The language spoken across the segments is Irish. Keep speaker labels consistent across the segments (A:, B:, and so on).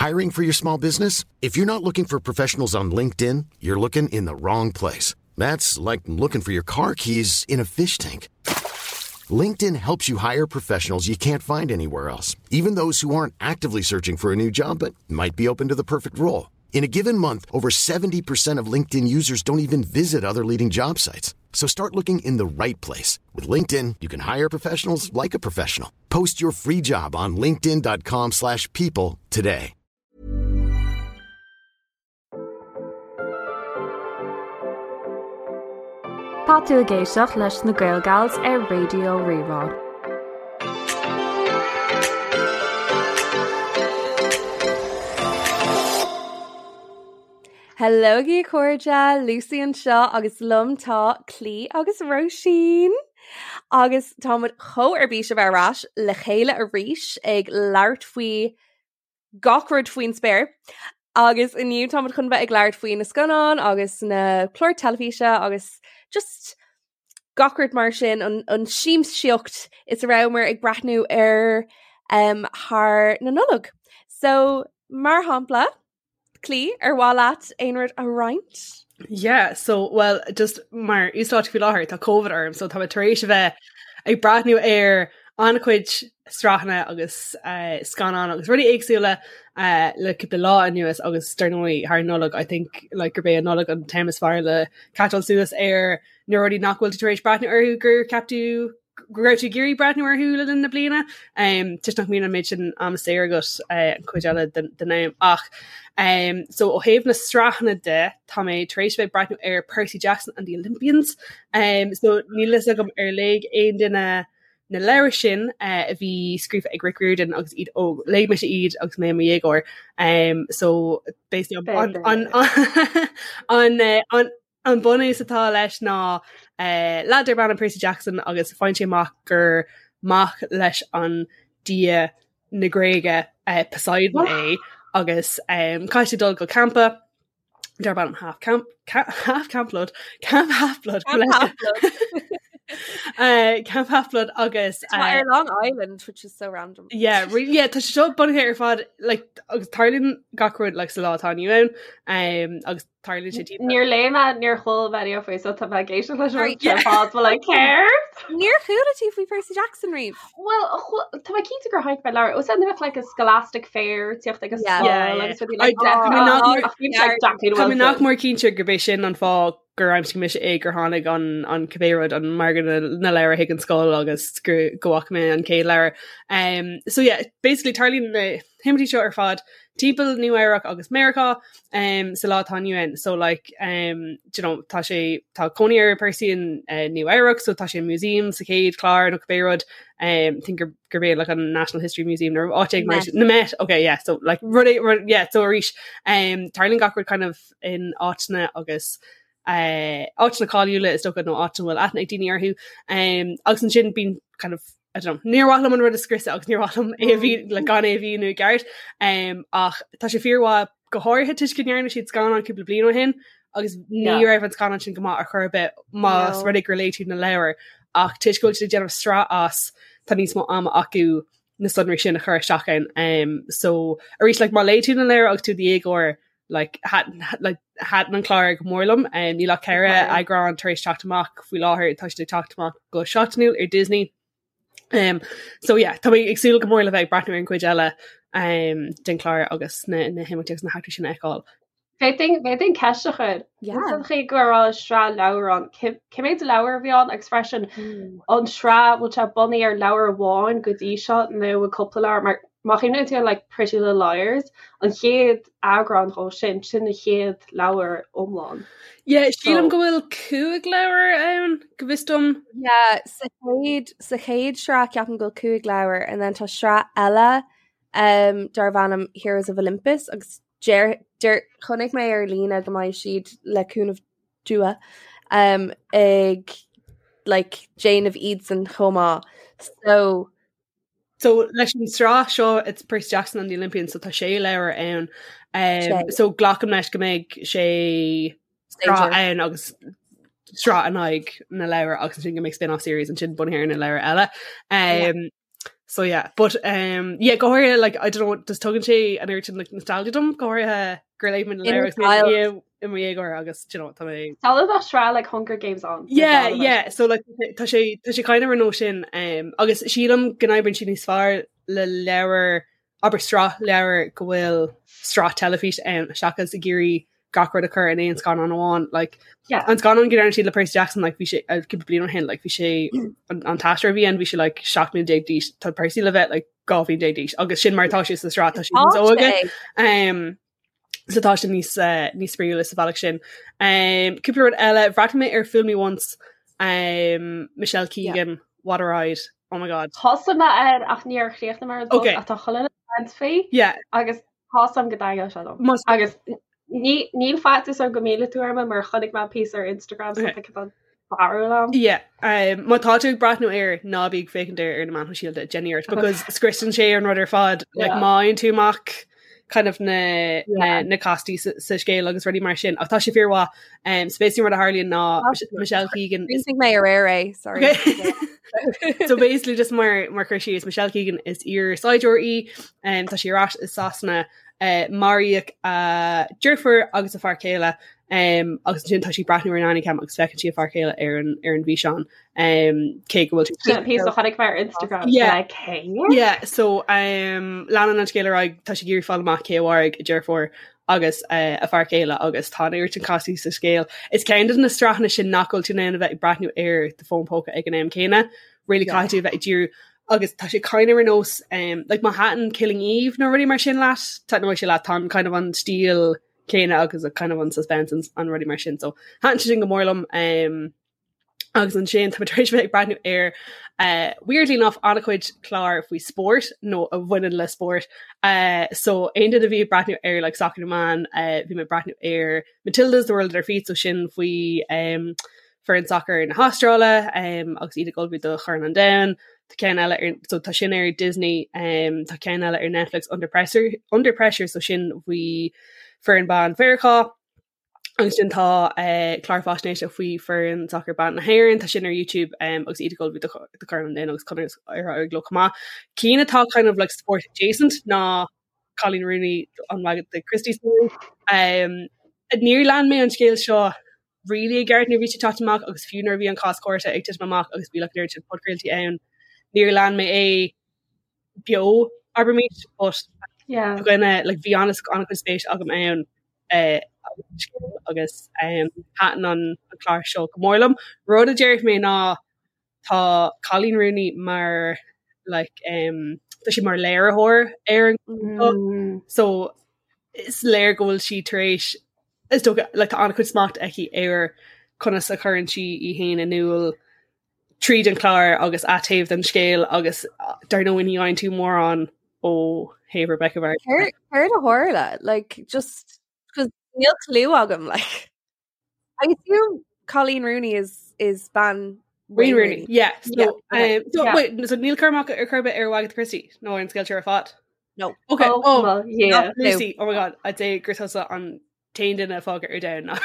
A: Hiring for your small business? If you're not looking for professionals on LinkedIn, you're looking in the wrong place. That's like looking for your car keys in a fish tank. LinkedIn helps you hire professionals you can't find anywhere else, even those who aren't actively searching for a new job but might be open to the perfect role. In a given month, over 70% of LinkedIn users don't even visit other leading job sites. So start looking in the right place. With LinkedIn, you can hire professionals like a professional. Post your free job on linkedin.com slash people today.
B: Tá tú ag éisteacht leis na Gaelgals ar Raidió Rí-Rá.
C: Hello a chairde, Lucy anseo agus liom tá Clí agus Róisín. Agus táimid chomh ar bís a bheith ar ais le chéile arís ag labhairt faoi gach rud faoin spéir. Agus inniu táimid chun bheith ag labhairt faoi na scannáin agus na cláir teilifíse agus just gach rud mar sin an, an siamsaíocht is a rabhamar ag breathnú air um, thar na Nollag. So mar shampla, Clí, ar mhaith leat aon rud a roinnt?
D: Yeah, so well just mar uasdáta faoi láthair tá COVID orm, so tá mé tar éis a bheith ag breathnú ar an-chuid sraitheanna agus uh, scannán agus rudaí éagsúla uh, le cúpla lá anuas agus dar ndóigh thar Nollaig I think like gurb é an Nollaig an t-am is fearr le catcháil suas ar na rudaí nach bhfuil tú tar éis breathnú orthu gur cheap tú go raibh tú ag iarraidh breathnú orthu le linn na bliana um, toisc nach mbíonn an méid sin ama saor agat uh, an chuid eile den, den am ach um, so ó thaobh na sraitheanna de tá mé tar éis bheith breathnú ar Percy Jackson and the Olympians um, so níl fhios agam ar léigh aon duine na leabhair sin uh, a bhí scríofa ag Rick Riordan agus iad óg léigh mise iad agus mé i mo dhéagóir um, so basically an, an, an, an, eh, an, An bunús atá leis ná leaid darb ainm Percy Jackson agus faigheann sé amach gur mac leis an dia na Gréige Poseidon é agus caithfidh sé dul go campa darb ainm Half Camp Half Camp Blood Camp Half Blood Camp Half Blood agus
C: ar Long Island which is so random.
D: Yeah, really, yeah, tá sé seo bunaithe ar fad like, agus tarlaíonn gach rud like, sa lá atá inniu ann um, agus
E: Tarlaíonn sé timpeall. Níor léigh mé, níor chuala mé riamh faoi, so tá mé ag éisteacht leis an rud seo ar fad, but like céard?
C: Níor chuala tú faoi Percy Jackson riamh?
E: Well, tá mé cinnte gur chonaic mé leabhar. Ó said bheadh like a scholastic fair tíocht ag an scoil agus rudaí like
D: that. Tá mé nach mór cinnte gurb é sin an fáth gur aimsigh mise é gur tháinig an an cibé rud an margadh na leabhar chuig an scoil agus go go bhfaca mé an chéad leabhar. Um, so yeah, basically tarlaíonn na himeachtaí seo ar fad timpeall Nua Eabhrac agus Meiriceá um, sa lá atá inniu ann. So like um, do you know, tá sé tá cónaí ar Percy in uh, Nua Eabhrac, so tá sé i museum sa chéad chlár nó cibé rud um, think gur gurb é like an National History Museum nó áit éigin mar sin. Na Met, okay, yeah, so like rud é- rud- yeah, so arís um, tarlaíonn gach rud kind of in áiteanna agus uh, áiteanna cáiliúla is dócha nó áit a bhfuil aithne ag daoine orthu. Um, agus ansin bíonn kind of I don't know, níor mhaith liom an rud a scriosadh agus níor mhaith liom é a bhí le gan é a mhíniú i gceart um, ach tá sé fíormhaith go háirithe toisc go ndearna siad scannán cúpla bliain ó shin agus ní yeah. raibh an scannán sin go maith ar chor ar bith más no. rud é gur léigh tú na leabhair ach toisc go bhfuil siad ag déanamh sraith as tá níos mó ama acu na sonraí sin a chur isteach ann um, so arís like, má léigh tú na leabhair agus tú i do dhéagóir like, like, thaitin an clár go mór liom. Um, níl ach ceithre eagrán tar éis teacht amach faoi láthair tá siad ag teacht amach go seachtainiúil ar Disney. Um, so yeah, tá mé ag súil go mór le bheith ag breathnú ar an gcuid eile um, den chlár agus na, na himeachtaí agus na heachtraí sin a fheiceáil.
E: Féadfainn ceist a chur. An chaoi go raibh sraith leabhar ann, cé mhéad leabhar a bhí ann agus freisin an sraith bhfuil sé bunaithe ar leabhar amháin go dtí seo nó cúpla leabhar mar má chuimhníonn tú ar like Pretty Little Liars, an chéad eagrán dhó sin, sin an chéad leabhar iomlán.
D: Yeah, sílim go bhfuil 5 leabhar ann, go bhfios dom.
C: Yeah, sa chéad sa chéad sraith ceapaim go bhfuil 5 leabhar and then tá sraith eile um, darb ainm Heroes of Olympus agus deir deir chonaic mé ar líne go mbeidh siad le cúnamh Dua um, ag like déanamh iadsan chomh maith. So
D: So leis an sraith seo it's Percy Jackson and the Olympians so tá sé leabhar ann um, so glacaim leis go mbeidh sé sraith ann agus sraith in aghaidh na leabhar agus sin go mbeidh spin-off series ansin bunaithe ar na leabhair eile. Um, yeah. So yeah, but um, yeah, go háirithe like I don't know just tugann sé an oiread sin like nostalgia dom go háirithe gur léigh mé na leabhair i mo dhéagóir agus you know, tá mé
E: Tá bheadh sraith like Hunger Games ann.
D: Yeah, yeah, so like tá sé tá sé kind of ar nós sin um, agus sílim go n-oibríonn sé níos fearr le leabhar abair sraith leabhar go bhfuil sraith teilifís ann seachas ag iarraidh gach rud a chur in aon scannán amháin like
E: Yeah.
D: an scannán go ndearna siad le Percy Jackson like bhí sé uh, cúpla bliain ó shin like bhí sé an, an t-aisteoir a bhí ann bhí sé like 17 mbliana d'aois tá Percy le bheith like 12 bhliain d'aois agus sin mar atá sé sa sraith tá sé níos óige um, so tá sé níos uh, níos spraíúla sa bhealach sin um, cúpla rud eile bhreathnaigh mé ar Fool Me Once um, Michelle Keegan yeah. What a ride oh my god
E: Thosaigh mé air ach níor chríochnaigh mé ar
D: Okay.
E: ach tá chuile caint faoi
D: yeah
E: agus tá a fhios agam go dtaitneoidh sé liom.
D: Más-
E: Agus ní níl faitíos orm go millfidh tú orm mar chonaic mé píosa ar Instagram so
D: Okay.
E: tá cineál barúil agam.
D: Yeah, um, má tá tú ag breathnú air ná bí ag féachaint air ar na meáin shóisialta déan iarracht because scriosann sé an rud ar fad like,
E: Yeah.
D: má fhaigheann tú amach kind of na, na,
E: Yeah.
D: na castaí sa, sa scéal agus rudaí mar sin ach tá sé fíormhaith um, so basically rud a tharlaíonn ná Mich- Michelle Keegan is
C: Chríochnaigh mé aréir é, sorry.
D: Okay. so basically just mar mar chur síos Michelle Keegan is iar-saighdiúir í um, tá sí ar ais i Sasana uh, maraíodh a deirfiúr agus a fear céile um, agus ansin tá sí ag breathnú ar an nanny cam agus feiceann sí a fear céile ar an ar an bhfíseán um, cé go bhfuil
E: Sin an píosa a chonaic mé ar Instagram.
D: Yeah.
E: Like, hey.
D: Yeah, so um, leanann an scéal ar aghaidh tá sí ag iarraidh fáil amach cé a mharaigh a deirfiúr agus uh, a fear céile agus tá an oiread sin castaí sa scéal. Is ceann de na sraitheanna sin nach bhfuil tú in ann a bheith ag breathnú ar do fón póca ag an am céanna. Really
C: Yeah.
D: caithfidh tú a bheith ag díriú agus tá sé kind of ar nós um, like má thaitin Killing Eve nó rudaí mar sin leat, taitneoidh sé leat tá an kind of an stíl céanna agus a kind of an suspense and an rudaí mar sin. So thaitin sé sin go mór liom um, agus ansin tá mé tar éis bheith ag breathnú ar uh, weirdly enough an-chuid clár faoi spórt nó a bhaineann le spórt. Uh, so aon duine a bhí ag breathnú ar like, Soccer na mBan, uh, bhí mé ag breathnú ar Matildas The World at Our Feet, so sin faoi um, foireann sacair na hAstráile um, agus iad ag ullmhú do Chorn an Domhain. Tá ceann eile ar, so tá sin ar Disney, um, tá ceann eile ar Netflix Under Pressure, Under Pressure so sin faoi foireann ban Mheiriceá. Agus sin tá uh, clár faisnéise faoi foireann sacair ban na hÉireann, tá sin ar YouTube um, agus iad ag ullmhú do do Chorn an Domhain agus conas ar éirigh leo chomh maith. Cinn atá kind of like sport adjacent ná Coleen Rooney an Wagatha Christie story. Um, níor lean mé an scéal seo really i gceart nuair a bhí sé ag teacht amach agus fiú nuair a bhí an cás cúirte ag titim amach agus bhí like an oiread sin podchraoltaí ann, níor lean mé é beo abraimis, but
E: Yeah.
D: dhuine like bhí an an-chuid spéis agam ann eh, agus um, thaitin an an clár seo go mór liom. Rud a déarfaidh mé ná tá Coleen Rooney mar like um, tá sí mar léiritheoir ar an
E: Mm.
D: so is léir go bhfuil sí tar éis is dócha like, tá an-chuid smacht aici ar conas a chuireann sí í féin in iúl tríd an chlár agus a taobh den scéal agus uh, dar ndóigh ní fhaigheann tú mórán ó thaobh Rebecca Vardy.
C: Céard céard a tharla? Like, just because níl clue agam, like. I assume Coleen Rooney is is bean
D: Wayne Rooney. Yeah. So,
C: Yeah, okay.
D: um, so
E: Yeah.
D: wait, so níl cur amach ar chor ar bith ar Wagatha Christie nó ar an scéal seo ar fad.
C: No.
D: Okay.
E: Oh,
D: Oh,
E: well, yeah.
D: Lucy. Oh my god, I'd say gur tusa an t-aon duine fágtha ar domhan ná.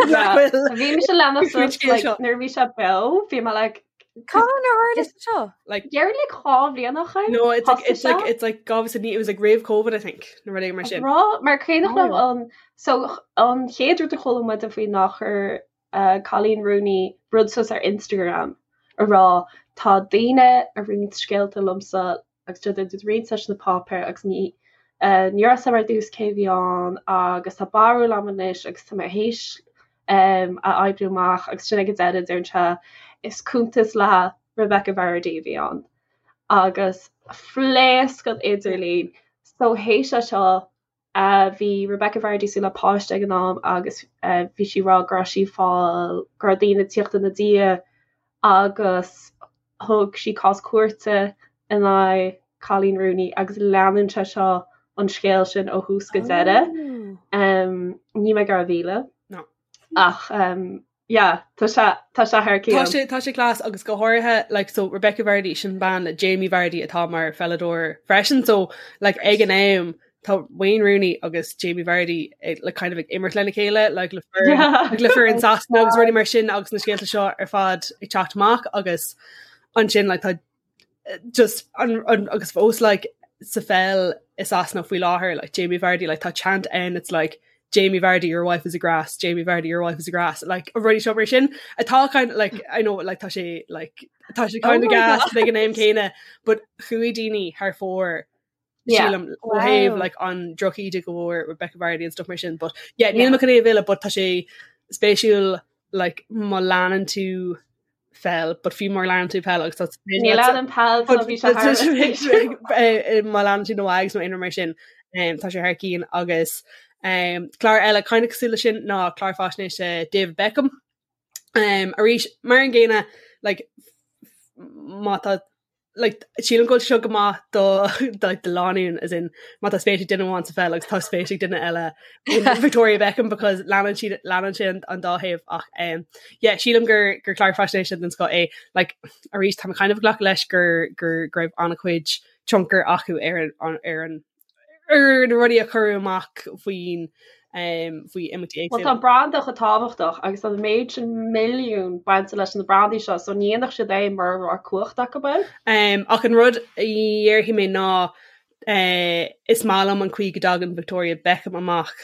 E: Yeah.
D: Bhfuil-
E: Bhí mise leanacht
D: Faoin scéal
E: like,
D: seo.
E: nuair a bhí sé beo, bhí mé like
C: Cá ar tharla seo?
D: Like
E: Deireadh like dhá bhliain ó shin?
D: no, it's like
E: Thosaigh
D: it's like
E: sé?
D: it's like God it was like roimh COVID, I think. Nó rudaí mar sin.
E: Rá mar cuimhneach
C: Oh.
E: liom an so an chéad rud a chuala muid faoi ná chuir uh, Coleen Rooney rud suas ar Instagram a rá tá daoine ag roinnt scéalta liomsa agus tá siad ag roinnt leis na páipéir agus ní uh, ní raibh a fhios agam ar dtús cé bhí ann agus tá barúil agam anois agus tá mé théis um, a oibriú amach agus sin ag an deireadh deireann sé is cuntas le Rebecca Vardy a bhí ann agus phléasc an idirlíon so théis é seo uh, bhí Rebecca Vardy súil le páiste ag an am agus uh, bhí sí rá go raibh sí fáil go raibh daoine ag tíocht ina diaidh agus thug sí cás cúirte in aghaidh Coleen Rooney agus leanann sé seo an scéal sin ó thús go deireadh.
C: Oh.
E: Um, ní mé gar mhíle.
D: No.
E: Ach um, yeah, tá sé tá sé thar
D: Tá
E: cionn.
D: sé tá sé class agus go háirithe like so Rebecca Vardy sin bean le Jamie Vardy atá mar pheileadóir freisin so like ag an am tá Wayne Rooney agus Jamie Vardy ag, like kind of ag imirt lena chéile like le foireann
E: Yeah.
D: like le foireann Sasana agus rudaí mar sin agus na scéalta seo ar fad ag teacht amach agus ansin like tá just an, an, agus fós like sa pheil i Sasana faoi láthair like Jamie Vardy like tá chant ann it's like Jamie Vardy your wife is a grass Jamie Vardy your wife is a grass like an rudaí seo mar sin atá kind of like I know like tá sé like tá sé kind of oh gas ag an am céanna but chuaigh daoine thar fóir sílim ó thaobh like an drochíde go bhfuair Rebecca Vardy and stuff mar sin but yeah níl mé chun é a mhilleadh but tá sé spéisiúil like má leanann tú peil but fiú má leanann tú peil agus tá
E: Ní leanaim peil so bhí sé thar
D: eh, má leanann tú na Wags nó aon rud mar sin um, tá sé thar cinn agus um, clár eile kind of cosúil leis sin ná clár faisnéise David Beckham um, arís mar an gcéanna like, má tá like, sílim go bhfuil seo go maith do do like, do lánúin as in má tá spéis ag duine amháin sa pheil agus tá spéis ag duine eile in Victoria Beckham because leanann siad leanann sé an, an dá thaobh ach um, yeah, sílim gur gur clár faisnéise den scoth é like, arís tá mé kind of ag glacadh leis gur gur go raibh an-chuid tionchar acu ar an ar an ar na rudaí a cuireadh amach faoin faoi imeachtaí
E: Well éagsúla. tá branda chomh tábhachtach agus tá an méid sin milliún bainte leis na brandaí seo so ní dhéanfadh siad é mura raibh cumhacht acu
D: air. Ach an rud a dhéarfaidh mé ná is maith liom an chaoi go dtagann Victoria Beckham amach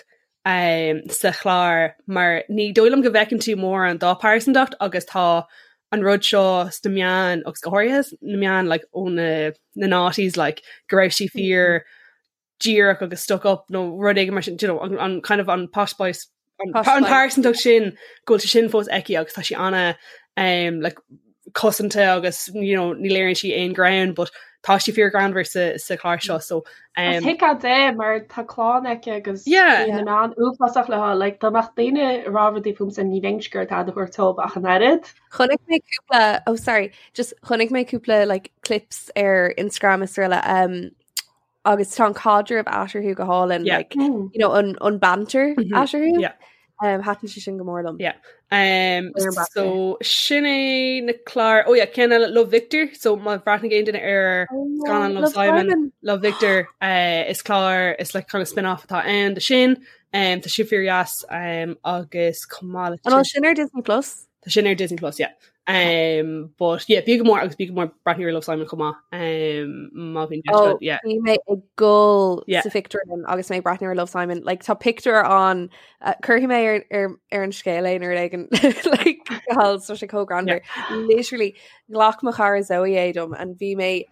D: sa chlár mar ní dóigh liom go bhfeiceann tú mórán dá pearsantacht agus tá an rud seo sna meáin agus go háirithe sna meáin like ó na na noughties like go raibh sí fíor díreach agus stuck up nó rud éigin mar sin you know, an, an kind of an posh spice an, Posh an spice. pearsantacht sin go bhfuil sé sin fós aici agus tá sí ana um, like, cosanta agus you know, ní léiríonn sí aon greann but tá sí fíor greannmhar sa, sa chlár seo so
E: um, Is tuigthe di mar tá clann aici agus Yeah. bíonn na meáin uafásach léi like dá mbeadh daoine ag rá rudaí fúmsa ní bheinnse ag iarraidh tada a thabhairt dóibh ach an oiread.
C: Chonaic mé cúpla oh sorry just chonaic mé cúpla like clips ar Instagram is araile um, agus tá an caidreamh eatarthu go hálainn
D: Yeah.
C: like you know an an banter eatarthu.
D: Yeah.
C: Um, thaitin sé sin go mór liom.
D: Yeah. Um,
C: Ar an
D: so sin é na cláir oh yeah, ceann eile Love Victor so má bhreathnaigh aon duine ar scannán Love Simon Love Victor uh, is clár is like kind of spin-off atá ann de sin um, tá sé fíordheas um, agus chomh maith
C: le An bhfuil sin ar Disney Plus?
D: Tá sin ar Disney Plus, yeah. Um, but yeah, b'fhiú go mór agus b'fhiú go mór breathnú ar Love Simon chomh maith. Um, má bhíonn deis
C: Oh,
D: agat, yeah.
C: Bhí mé ag gol
D: Yeah.
C: sa phictiúrlann agus mé ag breathnú ar Love Simon. Like, tá pictiúr ann uh, cuirfidh mé ar, ar, ar an scéal é nó rud éigin like, hall tá sé chomh greannmhar. Literally, ghlac mo chara Zoe é dom and bhí mé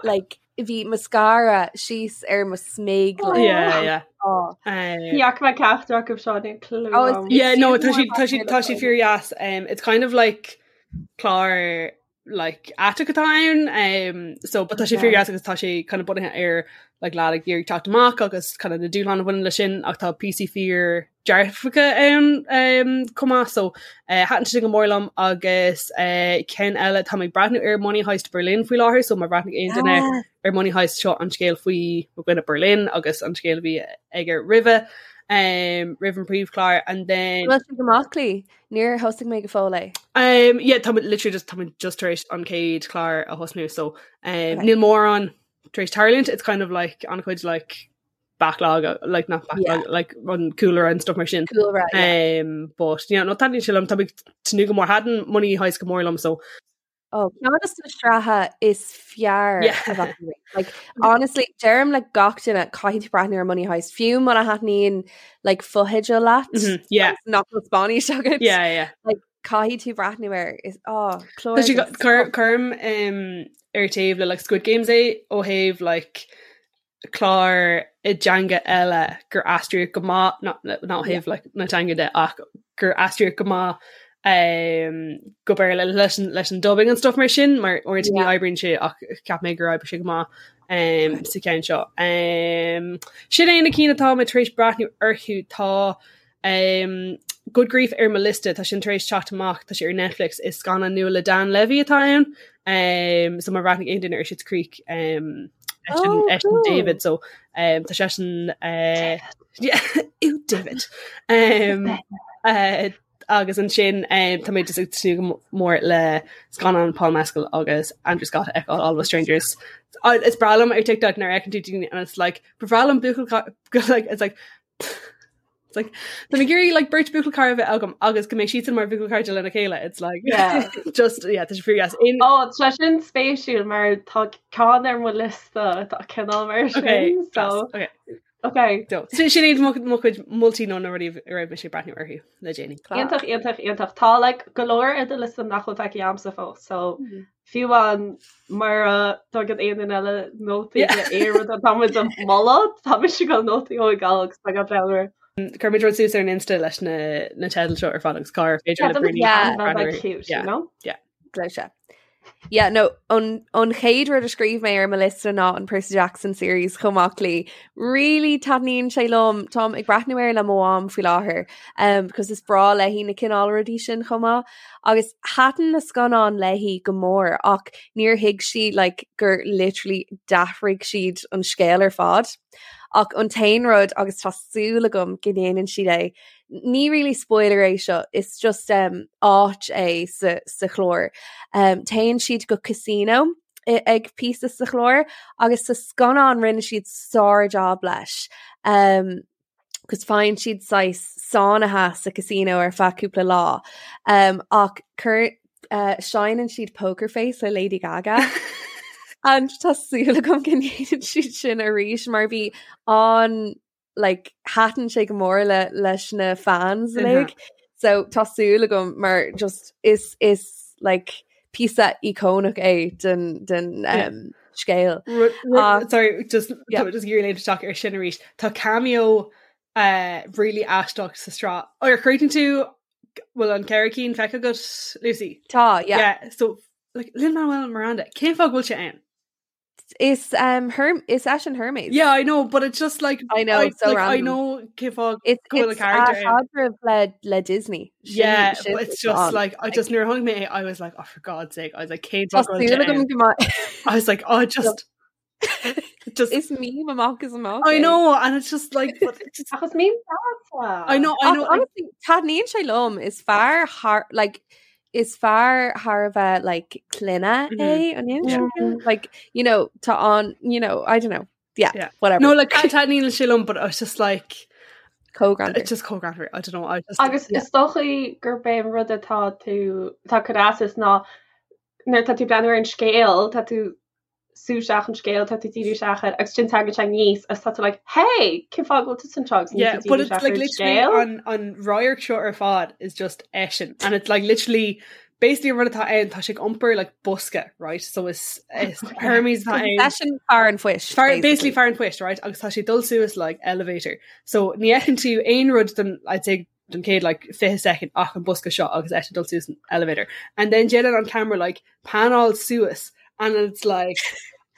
C: like, bhí mascara síos ar mo smig
D: like, Yeah, yeah.
C: oh.
E: Ní fhaca mé ceachtar acu seo níl clue
C: Oh, it's-
E: agam.
D: Yeah, no, tá
C: Is
D: sí tá sí tá sí fíordheas. Um, it's kind of like clár like aiteach atá ann. Um, so but tá sé
C: Yeah.
D: fíordheas agus tá sé kind of bunaithe ar like lad ag iarraidh teacht amach agus kind of na dúshláin a bhaineann leis sin ach tá píosaí fíor dearfacha ann um, chomh maith so uh, thaitin sé go mór liom agus uh, ceann eile tá mé ag breathnú ar Money Heist Berlin faoi láthair so má bhreathnaigh aon duine
C: Ah,
D: ar Money Heist seo an scéal faoi mo dhuine Berlin agus an scéal a bhí aige roimhe um, roimh an príomhchlár and then
C: Bhfuil sé go maith Clí? Níor thosaigh mé go fóill é.
D: um, yeah, tá literally just tá just tar éis an chéad chlár a thosnú so um,
C: Okay.
D: níl mórán tar éis tarlúint it's kind of like an-chuid like backlog uh, like not backlog
C: Yeah.
D: like an cúlra and stuff mar sin
C: Cúlra, yeah.
D: um, but yeah, no taitníonn sé liom tá mé ag tnúth go mór thaitin Money Heist go mór liom so
C: Oh, ceann de na sraithe is fearr
D: Yeah.
C: a bheith riamh. Like, honestly, deirim le gach duine caithfidh tú breathnú ar Money Heist. Fiú muna thaitníonn like fotheidil leat,
D: yeah
C: agus nach bhfuil Spáinnis agat.
D: yeah yeah
C: Caithfidh tú breathnú air. Is oh, clár
D: Tá sé
C: den
D: cuir-
C: scoth.
D: Cuirim um, ar taobh le like Squid Games é ó thaobh like clár i dteanga eile gur aistríodh go maith ná ó thaobh like, na teanga de ach gur aistríodh go maith um, go Béarla leis an, leis an dubbing and stuff mar sin mar uaireanta ní
C: Yeah.
D: oibríonn sé ach cheap mé gur oibrigh sé go maith um, sa cheann seo. Um, sin é na cinn atá mé tar éis breathnú orthu tá um, Good Grief ar mo liosta tá sin tar éis teacht amach tá sé ar Netflix is scannán nua le Dan Levy atá ann um, so má bhreathnaigh aon duine ar Schitt's Creek um, eisean
C: Oh,
D: eisean
C: cool.
D: David so um, tá seisean uh, yeah, ew, David um, uh, agus ansin um, tá mé just ag tnúth go mór le scannán Paul Mescal agus Andrew Scott a fheiceáil All of Us Strangers. Uh, Is breá liom ar TikTok nuair a fheiceann tú daoine and it's like ba bhreá liom buachaill like it's like It's like Tá mé ag iarraidh like beirt buachaill cara a bheith agam agus go mbeidh siadsan mar bhuachaill cairde lena chéile. It's like
E: Yeah.
D: just yeah, tá sé fíor dheas.
E: In Ó, tá sin spéisiúil mar tá ceann ar mo liosta atá cineál mar
D: Okay,
E: sin.
D: class.
E: So,
D: Okay.
E: okay.
D: So, sin sin iad mo mo chuid moltaí nó na rudaí a raibh mise ag breathnú orthu le déanaí.
E: Iontach, iontach, iontach. Tá like go leor ar do liosta nach bhfuil feicthe agamsa fós, so fiú amháin mura dtugann aon duine eile nótaí
D: Yeah.
E: de aon rud atá muid a mholadh, tá mise ag dul nótaí a thógáil agus tá gach leabhar.
D: Cuirfimid rud suas ar an Insta leis na na teidil seo ar fad agus cá ar féidir
E: Yeah,
D: le
E: that would
D: Bernie
C: Yeah.
E: be
D: breathnú
E: cute, you
D: Yeah.
E: know?
C: Gleoite. Yeah, no, an, an chéad rud a scríobh mé ar mo liosta ná an Percy Jackson series chomh maith le. Really taitníonn sé liom táim ag breathnú air le mo mham faoi láthair um, because is breá léi na cineál rudaí sin chomh maith. Agus thaitin na scannáin léi go mór ach níor thuig sí like, gur literally d'athraigh siad an scéal ar fad. Ach an t-aon rud agus tá súil agam go ndéanann siad é, ní really spoiler é seo, is just um, áit é sa, sa chlár. Um, téann siad go casino ag píosa sa chlár agus sa scannán rinne siad sár-job leis. Um, agus faigheann siad saghas sáinnithe sa casino ar feadh cúpla lá. Um, ach cur, uh, seinneann siad Poker Face le Lady Gaga. And tá súil agam go ndéanann siad sin arís mar bhí an like, thaitin sé go mór le, leis na fans uilig. So tá súil agam mar just is is like píosa íocónach é den den um, scéal.
D: Uh, sorry, just yeah. just ag iarraidh léimt isteach ar sin arís. Tá cameo uh, really aisteach sa sraith. Ar chríochnaigh tú bhfuil an ceithre cinn feicthe agat Lucy?
C: Tá, yeah.
D: Yeah, so like Lin-Manuel Miranda, cén fáth go bhfuil sé ann?
C: Is um Herm is eisean Hermes.
D: Yeah, I know, but it's just like
C: I know
D: I,
C: it's so
D: like, I
C: random.
D: know cén fáth
C: It's
D: go bhfuil a
C: it's
D: character
C: a
D: ann.
C: chaidreamh le le Disney. Sin
D: Yeah,
C: sin
D: but it's
C: what's
D: just
C: on.
D: like I just nuair a chonaic mé é, I was like, oh for God's sake, I was like, cén
C: Tá
D: fáth go bhfuil
C: súil
D: sé
C: agam
D: ann?
C: go mbeidh
D: I was like, oh just just
C: Is meme amach is amach
D: I
C: é.
D: know, and it's just like but it's just,
E: Ach is meme deas.
D: I know, I
C: Ach
D: know.
C: honestly, taitníonn sé liom is fear thar like is fear thar a bheith like clainne é an
D: Yeah.
C: mm like you know tá an you know I don't know yeah,
D: Yeah.
C: whatever
D: No, like taitníonn sé liom, but I was just like
C: Cógrand
D: it's just cógrand. I don't know. I just
E: Agus
C: Yeah.
E: is dócha gurb é an rud atá tú tá cur as is ná nuair tá tú breathnú ar an scéal tá tú sú isteach an scéal tá tú díriú isteach air agus sin tagann sé aníos agus tá tú like hey cén fáth go bhfuil tú anseo agus níl
D: Yeah,
E: tú
D: but
E: díriú
D: it's
E: isteach
D: like
E: ar an
D: literally
E: scéal.
D: an an radharc seo ar fad is just eisean and it's like literally basically an rud atá ann tá sé ag iompar like bosca right so is is Hermes atá ann
C: Eisean fear an phoist
D: Fear, basically fear an phoist right agus tá sé ag dul suas like elevator so ní fheiceann tú aon rud don I'd say don chéad like 20 second ach an bosca seo agus eisean ag dul suas an elevator and then déanann an camera like panáil suas and it's like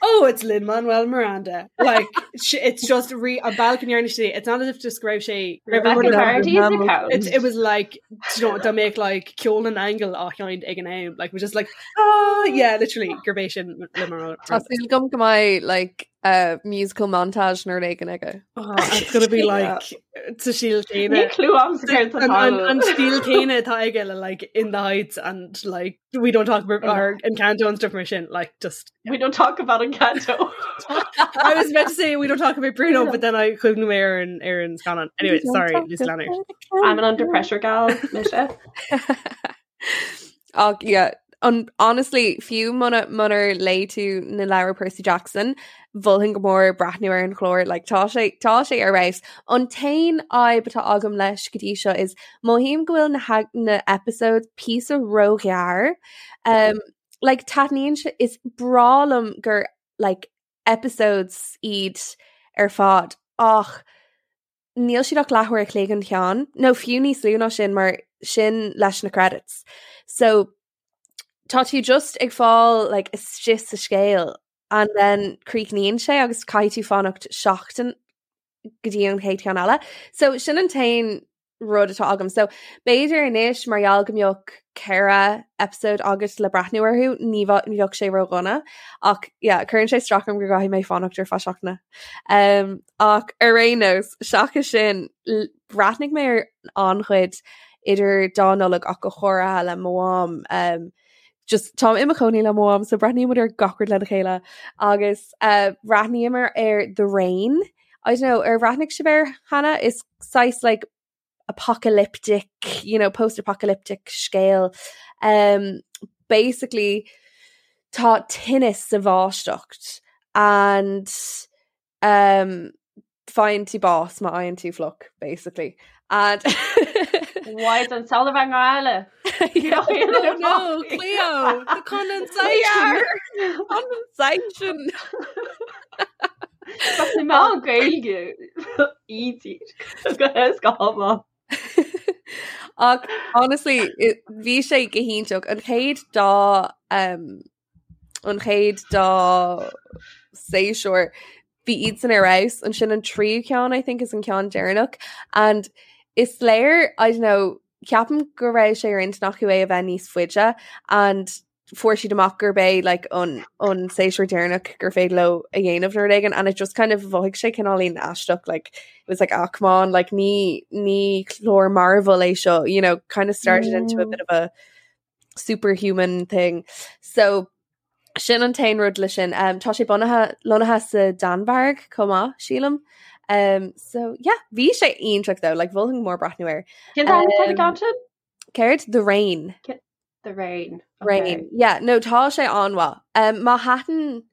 D: oh it's Lin-Manuel Miranda like it's just re an bealach a ndearna sé it's not as if just go raibh sé go raibh
E: Rebecca
D: rud
E: Vardy is a count.
D: It's, it was like you know dá mbeadh like ceol na n-aingeal á sheinnt ag an am like it was just like ah yeah literally gurb é sin Lin-Manuel
C: Tá súil agam go mbeidh like uh, musical montage nó rud éigin aige.
D: Oh, it's gonna be like sa stíl céanna.
E: Níl clue agamsa céard
D: An, an,
E: atá
D: an stíl céanna atá aige le like in the heights and like we don't talk about our Encanto and stuff mar sin like just
E: We don't talk about Encanto.
D: I was about to say we don't talk about Bruno but then I chuimhnigh mé ar an ar an scannán anyway sorry Lucy Leonard
E: I'm an under pressure gal, mise.
C: Ach yeah, an, honestly, fiú muna munar léigh tú na leabhair Percy Jackson, mholfainn go mór breathnú ar an chlár, like, tá sé tá sé ar fheabhas. An t-aon fhadhb atá agam leis go dtí seo is mothaím go bhfuil na na episodes píosa róghearr. Um, like, taitníonn sé is breá liom gur like, episodes iad ar fad ach níl siad ach leathuair a chloig an ceann, nó fiú níos lú ná sin mar sin leis na credits. So tá tú just ag fáil like, istigh sa scéal and then críochnaíonn sé agus caithfidh tú fanacht seachtain go dtí an chéad cheann eile. So sin an t-aon rud atá agam. So b'fhéidir anois mar gheall go mbeadh 4 episode agat le breathnú orthu, ní bheadh sé ródhona. Ach yeah, cuireann sé isteach orm go gcaithfidh mé fanacht ar feadh seachtaine. Um, ach ar aon nós, seachas sin, bhreathnaigh mé ar an-chuid idir dá Nollaig ach go háirithe le mo mham. Um, just táim i mo chónaí le mo mham, so breathnaímid ar gach rud lena chéile. Agus uh, bhreathnaíomar ar The Rain. I don't know, ar bhreathnaigh sibh air cheana? Is saghas like apocalyptic, you know, post-apocalyptic scéal. Um, basically, tá tinneas sa bháisteach and um, faigheann tú bás má fhaigheann tú fliuch, basically. And
E: Why an solar van Gaile?
D: Oh no, Cleo, the condensation.
C: Condensation.
E: Má Gaeilge í go
C: Ach honestly, bhí sé go hiontach an chéad dá um, an chéad dá séasúr bhí iadsan ar fheabhas ansin an tríú ceann I think is an ceann deireanach and is léir I don't know ceapaim go raibh sé ar intinn acu é a bheith níos faide and fuair siad amach gurb é like an an séasúr deireanach gur féidir leo a dhéanamh nó rud éigin and it just kind of mhothaigh sé cineáilín aisteach like it was like ah come on like ní ní clár Marvel é seo you know kind of started mm. into a bit of a superhuman thing. So sin an t-aon rud le sin. Um, tá sé bunaithe lonnaithe sa Danmhairg chomh maith sílim. Um, so yeah, bhí sé iontach though, like mholfainn mór breathnú air.
E: Cén um,
C: um, Céard? The Rain.
E: The Rain.
C: Okay. Rain. Yeah, no tá sé an-mhaith. Um, má thaitin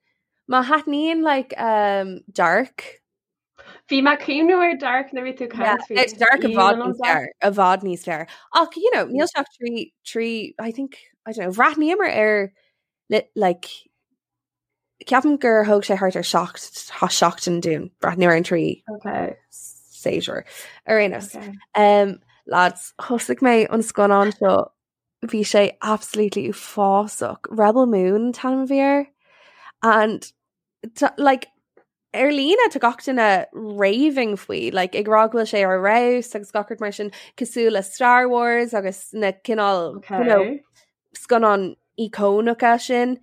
C: má thaitníonn like um, Dark
E: Bhí mé ag cuimhniú ar Dark nuair a bhí tú ag caint faoi.
C: It's Dark i bhfad níos fearr, i bhfad níos fearr. Ach, you know, níl sé ach trí, trí, I think, I don't know, bhreathnaíomar air like, ceapaim gur thóg sé thart ar seacht, seachtain dúinn breathnú ar an trí
E: okay.
C: séasúr. Ar aon nós. Okay. Um, lads, thosaigh mé an scannán seo bhí sé absolutely uafásach. Rebel Moon an t-ainm a bhí air. And like, ar líne tá gach duine raving faoi, like, ag rá go bhfuil sé ar fheabhas agus gach rud mar sin cosúil le Star Wars agus na cineál
E: okay.
C: you know, scannáin íocónacha sin.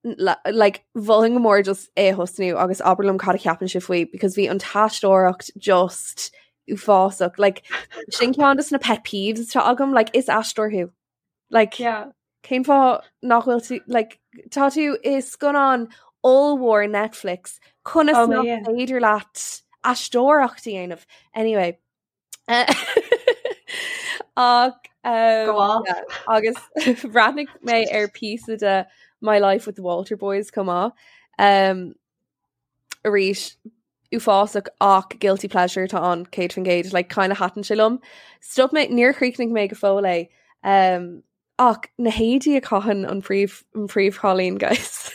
C: Like, mholfainn go mór just é a thosnú agus abair liom cad a cheapann sibh faoi because bhí an t-aisteoireacht just uafásach. Like, sin ceann de na pet peeves atá agam, like, is aisteoir thú. Like,
E: yeah.
C: Cén fáth nach bhfuil tú, like, tá tú i scannán ollmhór Netflix, conas
E: Oh,
C: nach
E: yeah.
C: féidir leat aisteoireacht a dhéanamh? Anyway. Ach um,
E: Go off.
C: yeah, agus bhreathnaigh mé ar píosa de My Life with the Walter Boys chomh maith. Um, arís uafásach ach guilty pleasure atá ann 100% like kind of thaitin sé liom. Stop mé níor chríochnaigh mé go fóill é um, ach na héadaí a chaitheann an príomh an príomhchailín guys.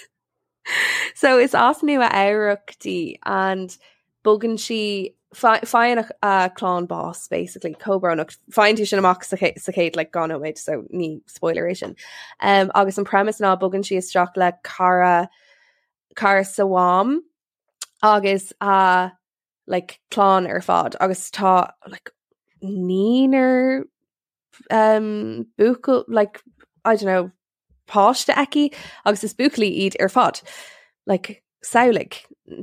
C: So is as Nua Eabhrac di and bogann sí faigheann a clann bás basically chomh brónach faigheann tú sin amach sa sa chéad like dhá nóiméad so ní spoiler é sin. Um, agus an premise ná bogann sí isteach le cara cara sa mham agus a like clann ar fad agus tá like naonúr um, buachaill like I don't know páiste aici agus is buachaillí iad ar fad like samhlaigh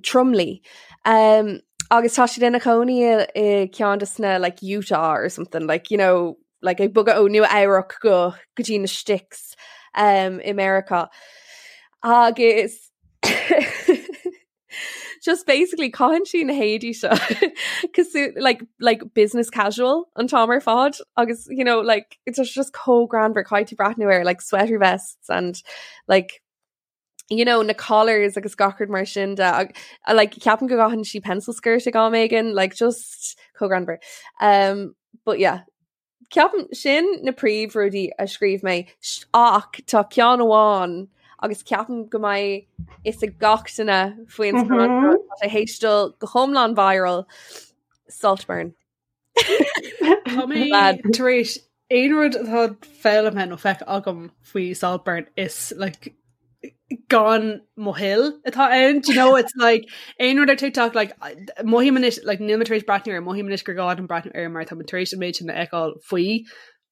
C: tromluí um, agus tá siad ina chónaí i ceann de sna like Utah or something like you know like ag bogadh ó Nua Eabhrac go go dtí na sticks um, i Meiriceá agus just basically caitheann sí na héadaí seo cosúil like like business casual an t-am ar fad agus you know like it's just, just chomh greannmhar caithfidh tú breathnú air like sweater vests and like you know na collars agus gach rud mar sin de ag, like ceapaim go gcaitheann sí pencil skirt ag am éigin like just chomh greannmhar um but yeah Ceapaim sin na príomhrudaí a scríobh mé ach tá ceann amháin agus ceapaim go mbeidh fhios ag gach duine faoin scannán seo. Tá sé théis dul go hiomlán viral, Saltburn.
D: Tá mé tar éis aon rud atá foghlamtha nó feicthe agam faoi Saltburn is like gan mo thoil atá ann do you know it's like aon rud ar TikTok like mothaím anois like níl mé tar éis breathnú air mothaím anois gur gá dom breathnú air mar tá mé tar éis an méid sin a fheiceáil faoi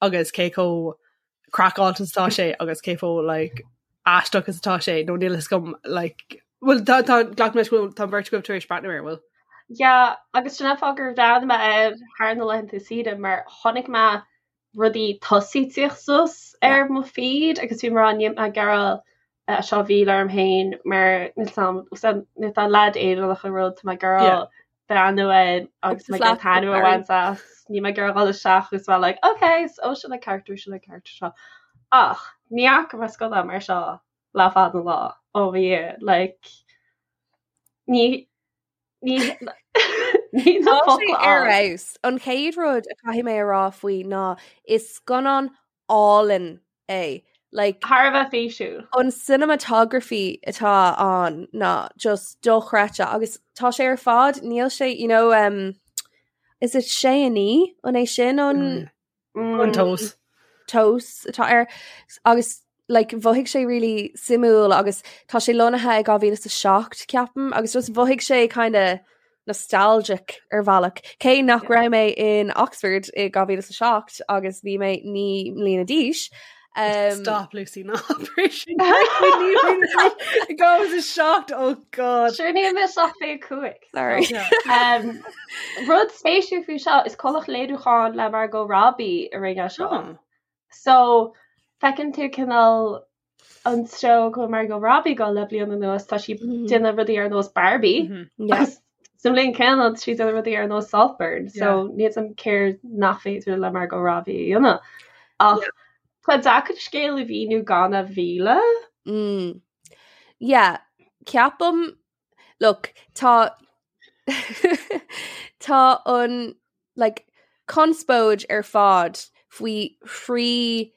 D: agus cé chomh craiceáilte is atá sé agus cé chomh like aisteach is atá sé nó níl fhios agam like well tá tá glac leis go bhfuil tá an bheirt agaibh tar éis breathnú air bhfuil?
E: Yeah agus sin an fáth gur bhreathnaigh mé air thar na laethanta saoire mar chonaic mé rudaí tosaigh ag tíocht suas ar mo feed agus bhí mé ag rá níl mé ag iarraidh é seo a mhilleadh orm féin mar níl 'fhios a'm tá leaid Éireannach an rud tá mé ag iarraidh. breathnú air agus mé ag iarraidh taitneamh a bhaint as. Níl mé ag iarraidh dhul isteach agus bheith like, ok, so sin an character, sin an character seo. Ach ní fhaca mé scannán mar seo le fada an lá ó bhí like ní ní ní na
C: Tá sé
E: focla
C: ar
E: ann.
C: fheabhas. An chéad rud a chaithfidh mé a rá faoi ná is scannán álainn é. Like,
E: Thar a bheith físiúil.
C: an cinematography atá ann ná just dochreidte agus tá sé ar fad níl sé you know um, is it sé a naoi an é sin an
D: Mm. An tomhas.
C: tomhas atá air agus like mhothaigh sé really suimiúil agus tá sé lonnaithe i 2007 ceapaim agus just mhothaigh sé kind of nostalgic ar bhealach. Cé nach raibh mé in Oxford i 2007 agus bhí mé 9 mbliana d'aois. Um,
D: Stop Lucy ná sin 2007 oh god.
E: Sure níl mé ach 25.
C: Sorry.
E: Um, rud spéisiúil faoi seo is comhlacht léiriúcháin le Margot Robbie a rinne seo.
D: Oh.
E: So feiceann tú cineál an treo go bhfuil Margot Robbie ag dul le bliain anuas tá sí
C: Mhm.
E: déanamh rudaí ar nós Barbie.
D: Mhm.
C: Yeah.
E: Agus sa mbliain céanna tá sí déanamh rudaí ar nós Saltburn, so níl a fhios agam céard nach féidir le Margot Robbie a dhéanamh. Ach tá deacair scéal a mhíniú gan a mhilleadh.
C: Mm. Yeah, ceapaim look, tá tá an like conspóid ar fad faoi thrí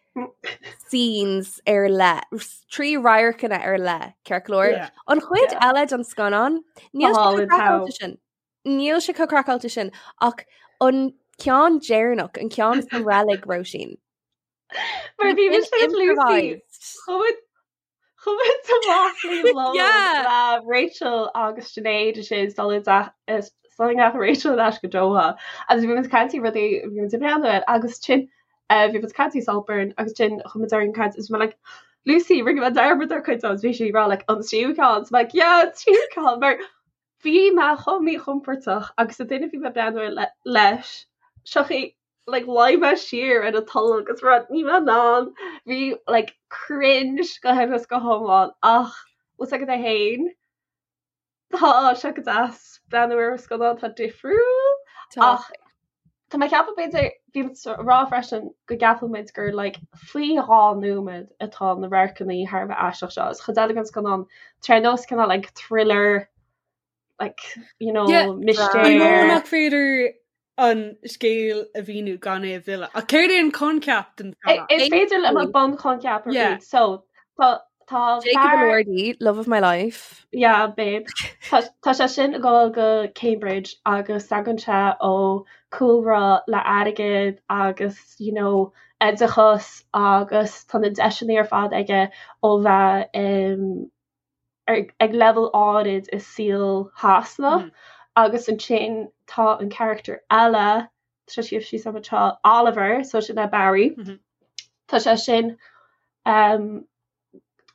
C: scenes ar leith, trí radharcanna ar leith, ceart go leor.
D: Yeah.
C: An chuid
E: Yeah.
C: eile den scannán, níl sé
E: Tá
C: chomh
E: an t-am.
C: craiceáilte sin. Níl sé chomh craiceáilte sin ach an ceann deireanach, an ceann sa reilig Róisín.
E: Mar bhí mise
C: Sin
E: ag Lucy
C: improvised.
E: Chuaigh muid amach le lón
C: Yeah.
E: le Rachel agus Sinéad is é dul gach Rachel leis go Doha agus bhí muid ag caint rudaí bhí muid ag breathnú air agus sin bhí muid ag caint Saltburn agus sin chuaigh muid ar an caint is mé like Lucy rinne mé dearmad ar chuid agus bhí sí ag rá like an tríú ceann so like yeah an tríú ceann mar bhí mé chomh míchompordach agus an duine bhí mé ag breathnú air leis seo like luigh mé siar ar an tolg agus rud ní mé in ann bhí like cringe go huile is go hiomlán ach bhfuil a fhios agat é féin tá sé go deas breathnú ar scannán atá difriúil ach tá mé ag ceapadh b'fhéidir bhí muid ag rá freisin go gceapann muid gur like faoi dhá nóiméad atá na radharcanna thar a bheith aisteach seo is chuid eile den scannán tá ar nós cineál like thriller like you know
D: Yeah, I know
E: mistéir
D: nach féidir an scéal a mhíniú gan é a mhilleadh. Ach céard é an coincheap den scannán?
E: Is féidir liom an bunchoincheap a
D: Yeah.
E: roinnt. So tá tá
C: Jacob
E: fear
C: Elordi, love of my life.
E: Yeah, babe. Tá tá sé sin ag dul go Cambridge agus tagann sé ó cúlra le airgead agus you know oideachas agus tá na deiseanna ar fad aige ó bheith um, ag leibhéal áirid i saol Shasana agus ansin tá an charachtar eile, tá sé scríofa síos agam anseo, Oliver, so sin é Barry, tá sé sin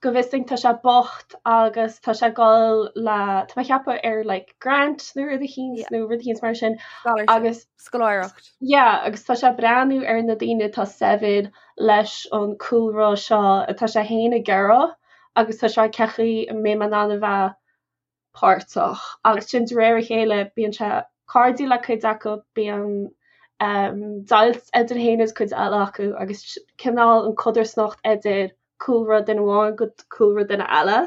E: go bhfios dúinn tá sé bocht agus tá sé ag dul le, tá mé ag ceapadh ar like grant nó rud eicínt nó rud eicínt mar sin agus
C: Scoláireacht.
E: Yeah, agus tá sé ag breathnú ar na daoine atá saibhir leis an cúlra seo atá sé féin ag iarraidh agus tá sé cén chaoi a mbeidh mé in ann a bheith páirteach agus sin de réir a chéile bíonn sé cairdiúil le cuid acu, bíonn deighilt idir féin agus cuid eile acu agus cineál an codarsnacht idir cúlra duine amháin go cúlra duine eile.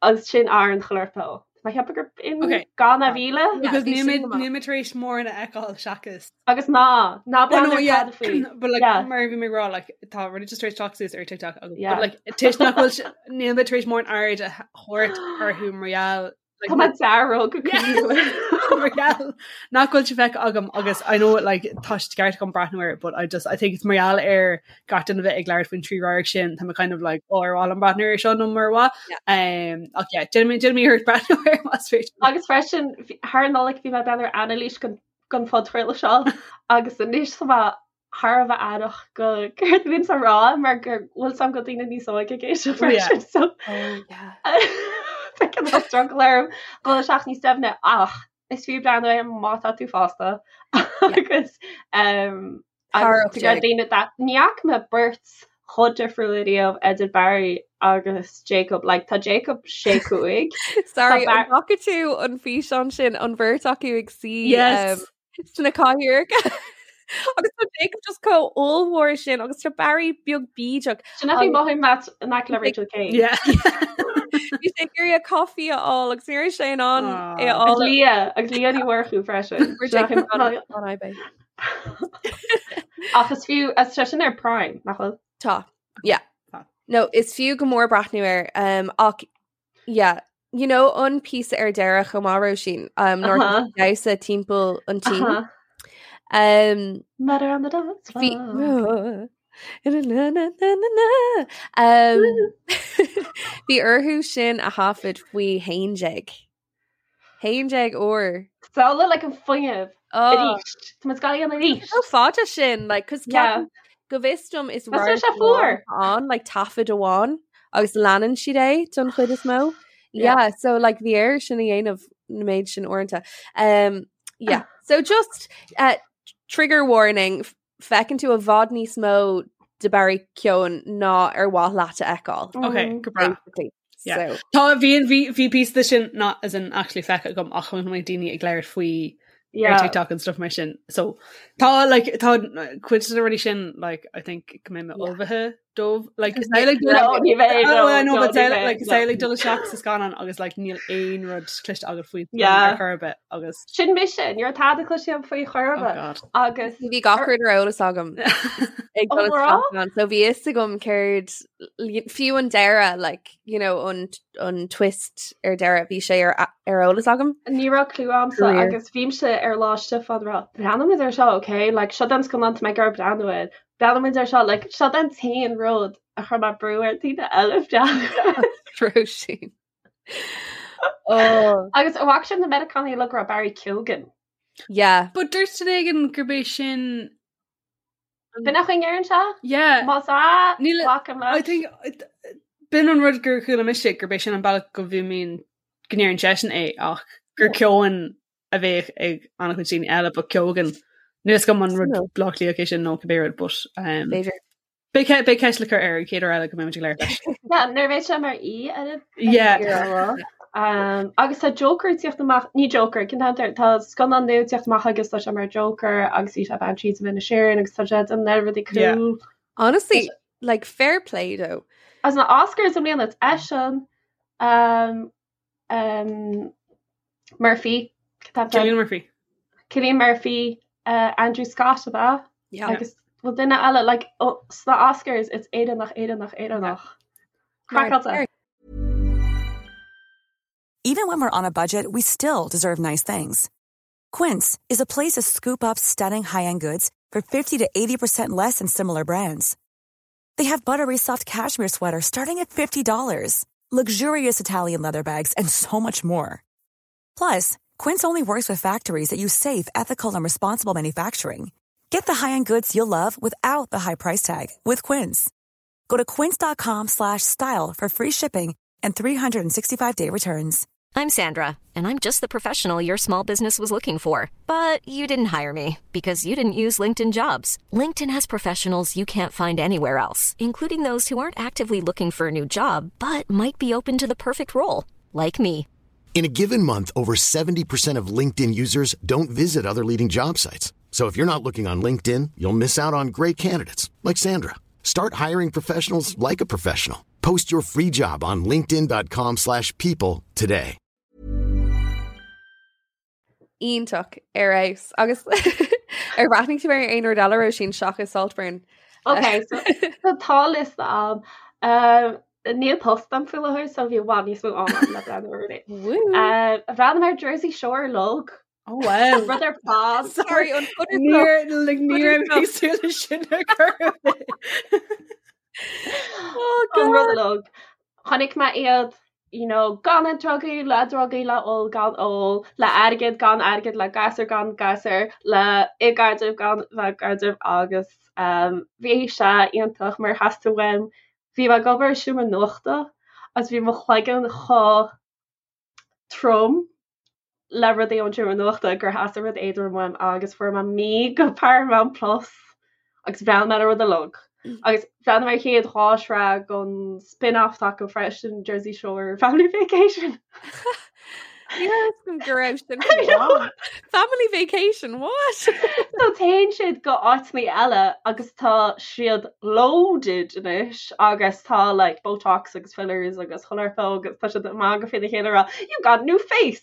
E: Agus sin ar an chlurpo. Tá mé ag ceapadh gur in
D: Ok.
E: gan a mhilleadh.
D: Because
C: bhí
D: níl
C: sin
D: mé
C: go maith.
D: níl mé tar éis mórán a fheiceáil seachas.
E: Agus ná, ná
D: Oh,
E: breathnaigh
D: no,
E: ar
D: yeah.
E: tada faoi.
D: But like
E: Yeah.
D: mar bhí mé ag rá like tá rudaí just tar éis teacht suas ar TikTok agus
E: Yeah.
D: but like toisc nach bhfuil sé- níl mé tar éis mórán aird a thabhairt orthu mar gheall like,
E: Tá mé dearg go
D: Yeah.
E: cuimhneach.
D: mar gheall nach bhfuil sé feicthe agam agus I know like tá sé ceart agam breathnú air but I just I think it's mar gheall ar gach duine bheith ag labhairt faoin trí radharc sin tá mé kind of like oh ar mhaith liom breathnú air seo nó mur mhaith um, ach yeah déanfaidh mé déanfaidh mé iarracht breathnú air más féidir.
E: Agus freisin thar an Nollaig bhí mé ag breathnú ar anailís den den phodchraoladh seo agus anois tá mé thar a bheith aireach go céard a bhíonns á rá mar go bhfuil a fhios agam go daoine níos óige ag éisteacht
D: Oh, yeah.
E: freisin so
C: Oh, yeah.
E: tá cineál struggle orm dul isteach níos doimhne ach is fiú breathnú air má tá tú fásta agus um,
C: Thar
E: agus go daoine that ní fhaca mé beirt chomh difriúil riamh idir Barry agus Jacob like tá Jacob sé cúig.
C: Sorry an bhfaca tú an físeán sin an bheirt acu ag suí
D: yes.
C: um, sna cathaoireacha agus tá Jacob just chomh ollmhór sin agus tá Barry beag bídeach.
E: Sin a bhí mothaigh Matt in aice le Rachel Kane.
D: Yeah.
C: Bhí sé ag iarraidh coffee a fháil agus ní raibh sé in ann é a
E: Agus
C: fháil.
E: Leah agus Leah Ní Mhurchú freisin.
C: Fuair Jacob on on eBay.
E: Ach is fiú is sé sin ar Prime nach bhfuil?
C: Tá. Yeah.
D: Tá.
C: No, is fiú go mór breathnú air um, ach yeah, you know an píosa ar deireadh chomh maith Róisín um, nuair
E: Uh-huh.
C: damhsa timpeall an tí.
E: Uh-huh.
C: Um,
E: Murder on the dance
C: Bhí
E: floor.
C: Na, na, na, na, na. Um, Bhí orthu sin a thaifead faoi haon déag. Haon déag uair.
E: Samhlaigh like an fuinneamh
C: Oh.
E: arís. Tá muid ag gabháil arís.
C: Chomh fada sin, like, 'cause
E: Yeah.
C: ceapaim go bhfios dom is
E: Mas sé fuar.
C: an like taifead amháin agus leanann siad é don chuid is mó.
E: Yeah.
C: Yeah, so like bhí air sin a dhéanamh na méid sin uaireanta. Um, yeah, so just uh, trigger warning, f- feiceann tú i bhfad níos mó de Barry Keoghan ná ar mhaith leat a fheiceáil.
D: Okay,
E: Mm.
D: go breá.
C: Basically.
D: Yeah.
C: So,
D: Tá bhí bhí bhí píosa de sin not as in actually feicthe agam ach chonaic mé daoine ag labhairt faoi ar
E: Yeah.
D: TikTok and stuff mar sin. So tá like tá cuid de na rudaí sin like I think go mbeidh mé
C: Yeah.
D: ullmhaithe dóibh like is é, like
E: No, ní bheidh,
D: Oh,
E: no,
D: I know,
E: no,
D: but
E: ní
D: say,
E: bheidh,
D: like
E: no.
D: say like dul isteach sa scannán agus like níl aon rud cloiste agat faoi
E: Yeah.
D: ar chor ar bith agus
E: Sin mise, ní raibh tada cloiste agam faoi
D: oh
E: chor ar bith.
D: god.
E: Agus
C: bhí gach rud ar eolas agam ag
E: Oh,
C: dul
E: rá?
C: isteach ann. So bhí fhios agam céard fiú an deireadh like you know an an twist ar deireadh bhí sé ar ar eolas agam.
E: Ní raibh clue agamsa
C: Career.
E: agus bhímse ar lá Stiofán rá Breathnóimid ar seo, okay? Like seo den scannán tá mé ag iarraidh breathnú air. Breathnóimid ar seo, like seo den t-aon rud a chuir mé brú ar daoine eile breathnú air.
C: Róisín. Oh
E: Agus an bhfaca sibh na Meiriceánaigh uilig ag rá Barry Keoghan.
C: yeah.
D: But dúirt duine éigin gurb é sin
E: B'in an chaoi a ndeireann sé?
D: yeah
E: Más ea,
D: Níl-
E: glacaim
D: I
E: leis.
D: think b'in an rud gur chuala mise gurb é sin an bealach go mbíonn go ndeireann seisean é ach gur Keown a bheadh ag an-chuid daoine eile but Keoghan. Níl fhios agam an rud
C: No.
D: Bleá Cliath é sin nó cibé rud but um,
C: B'fhéidir.
D: beidh ce- beidh ceist le cur air an chéad uair eile go mbeimid ag labhairt leis.
E: Yeah, nuair a bheidh sé mar aoi ar an
D: Yeah.
E: Um, agus tá Joker ag tíocht amach, ní Joker, cén t-ainm air, tá scannán nua ag tíocht amach agus tá sé mar Joker agus bhí sé Banshees of Inisherin agus tá sé an oiread rudaí
D: Yeah.
E: cool.
C: Honestly, like fair play though.
E: As na Oscars i mbliana it's eisean um, um, Murphy, cén t-ainm air?
D: Cillian Murphy.
E: Cillian Murphy, uh, Andrew Scott ab ea?
C: Yeah.
E: Agus bhfuil duine eile like, oh, sna Oscars it's Éireannach, Éireannach, Éireannach. Craiceáilte.
F: Even when we're on a budget, we still deserve nice things. Quince is a place to scoop up stunning high-end goods for 50 to 80% less than similar brands. They have buttery soft cashmere sweaters starting at $50, luxurious Italian leather bags, and so much more. Plus, Quince only works with factories that use safe, ethical, and responsible manufacturing. Get the high-end goods you'll love without the high price tag with Quince. Go to quince.com slash style for free shipping and 365-day returns.
G: I'm Sandra, and I'm just the professional your small business was looking for. But you didn't hire me because you didn't use LinkedIn jobs. LinkedIn has professionals you can't find anywhere else, including those who aren't actively looking for a new job but might be open to the perfect role, like me.
A: In a given month, over 70% of LinkedIn users don't visit other leading job sites. So if you're not looking on LinkedIn, you'll miss out on great candidates like Sandra. Start hiring professionals like a professional. Post your free job on linkedin.com/people slash people today.
C: Iontach ar fheabhas agus ar bhreathnaigh tú ar aon rud eile Róisín seachas Saltburn.
E: Ok, so so tá liosta agam. Um, níl post agam faoi láthair, so bhí i bhfad níos mó ama agam le breathnú ar rudaí.
C: Woo.
E: Um, bhreathnaigh mé ar Jersey Shore uilig.
D: Oh wow.
E: Rud ar fad.
C: Sorry, an
D: Níor like ní raibh mé ag súil leis sin ar chor ar bith.
C: Oh
E: An rud
C: God.
E: uilig. Chonaic mé iad, you know, gan na drugaí, le drugaí, le ól, gan ól, le airgead, gan airgead, le gasúr, gan gasúr, le i gcaidreamh, gan bheith i gcaidreamh agus um, bhí sé iontach mar theastaigh uaim. Bhí mé ag obair i seomra nuachta agus bhí mo chloigeann chomh trom le rudaí ón seomra nuachta gur theastaigh rud éadrom uaim agus fuair mé mí go Paramount Plus agus bhreathnaigh mé ar an rud uilig. Agus bhreathnaigh mé ar chéad dha shraith den spin-off atá acu freisin, Jersey Shore Family Vacation.
C: Ní raibh fhios agam go raibh sin ann. Family Vacation, what?
E: So téann siad go áiteanna eile agus tá siad loaded anois agus tá like Botox agus fillers agus chuile shórt agus tá siad ag magadh faoina chéile ag rá you got a new face!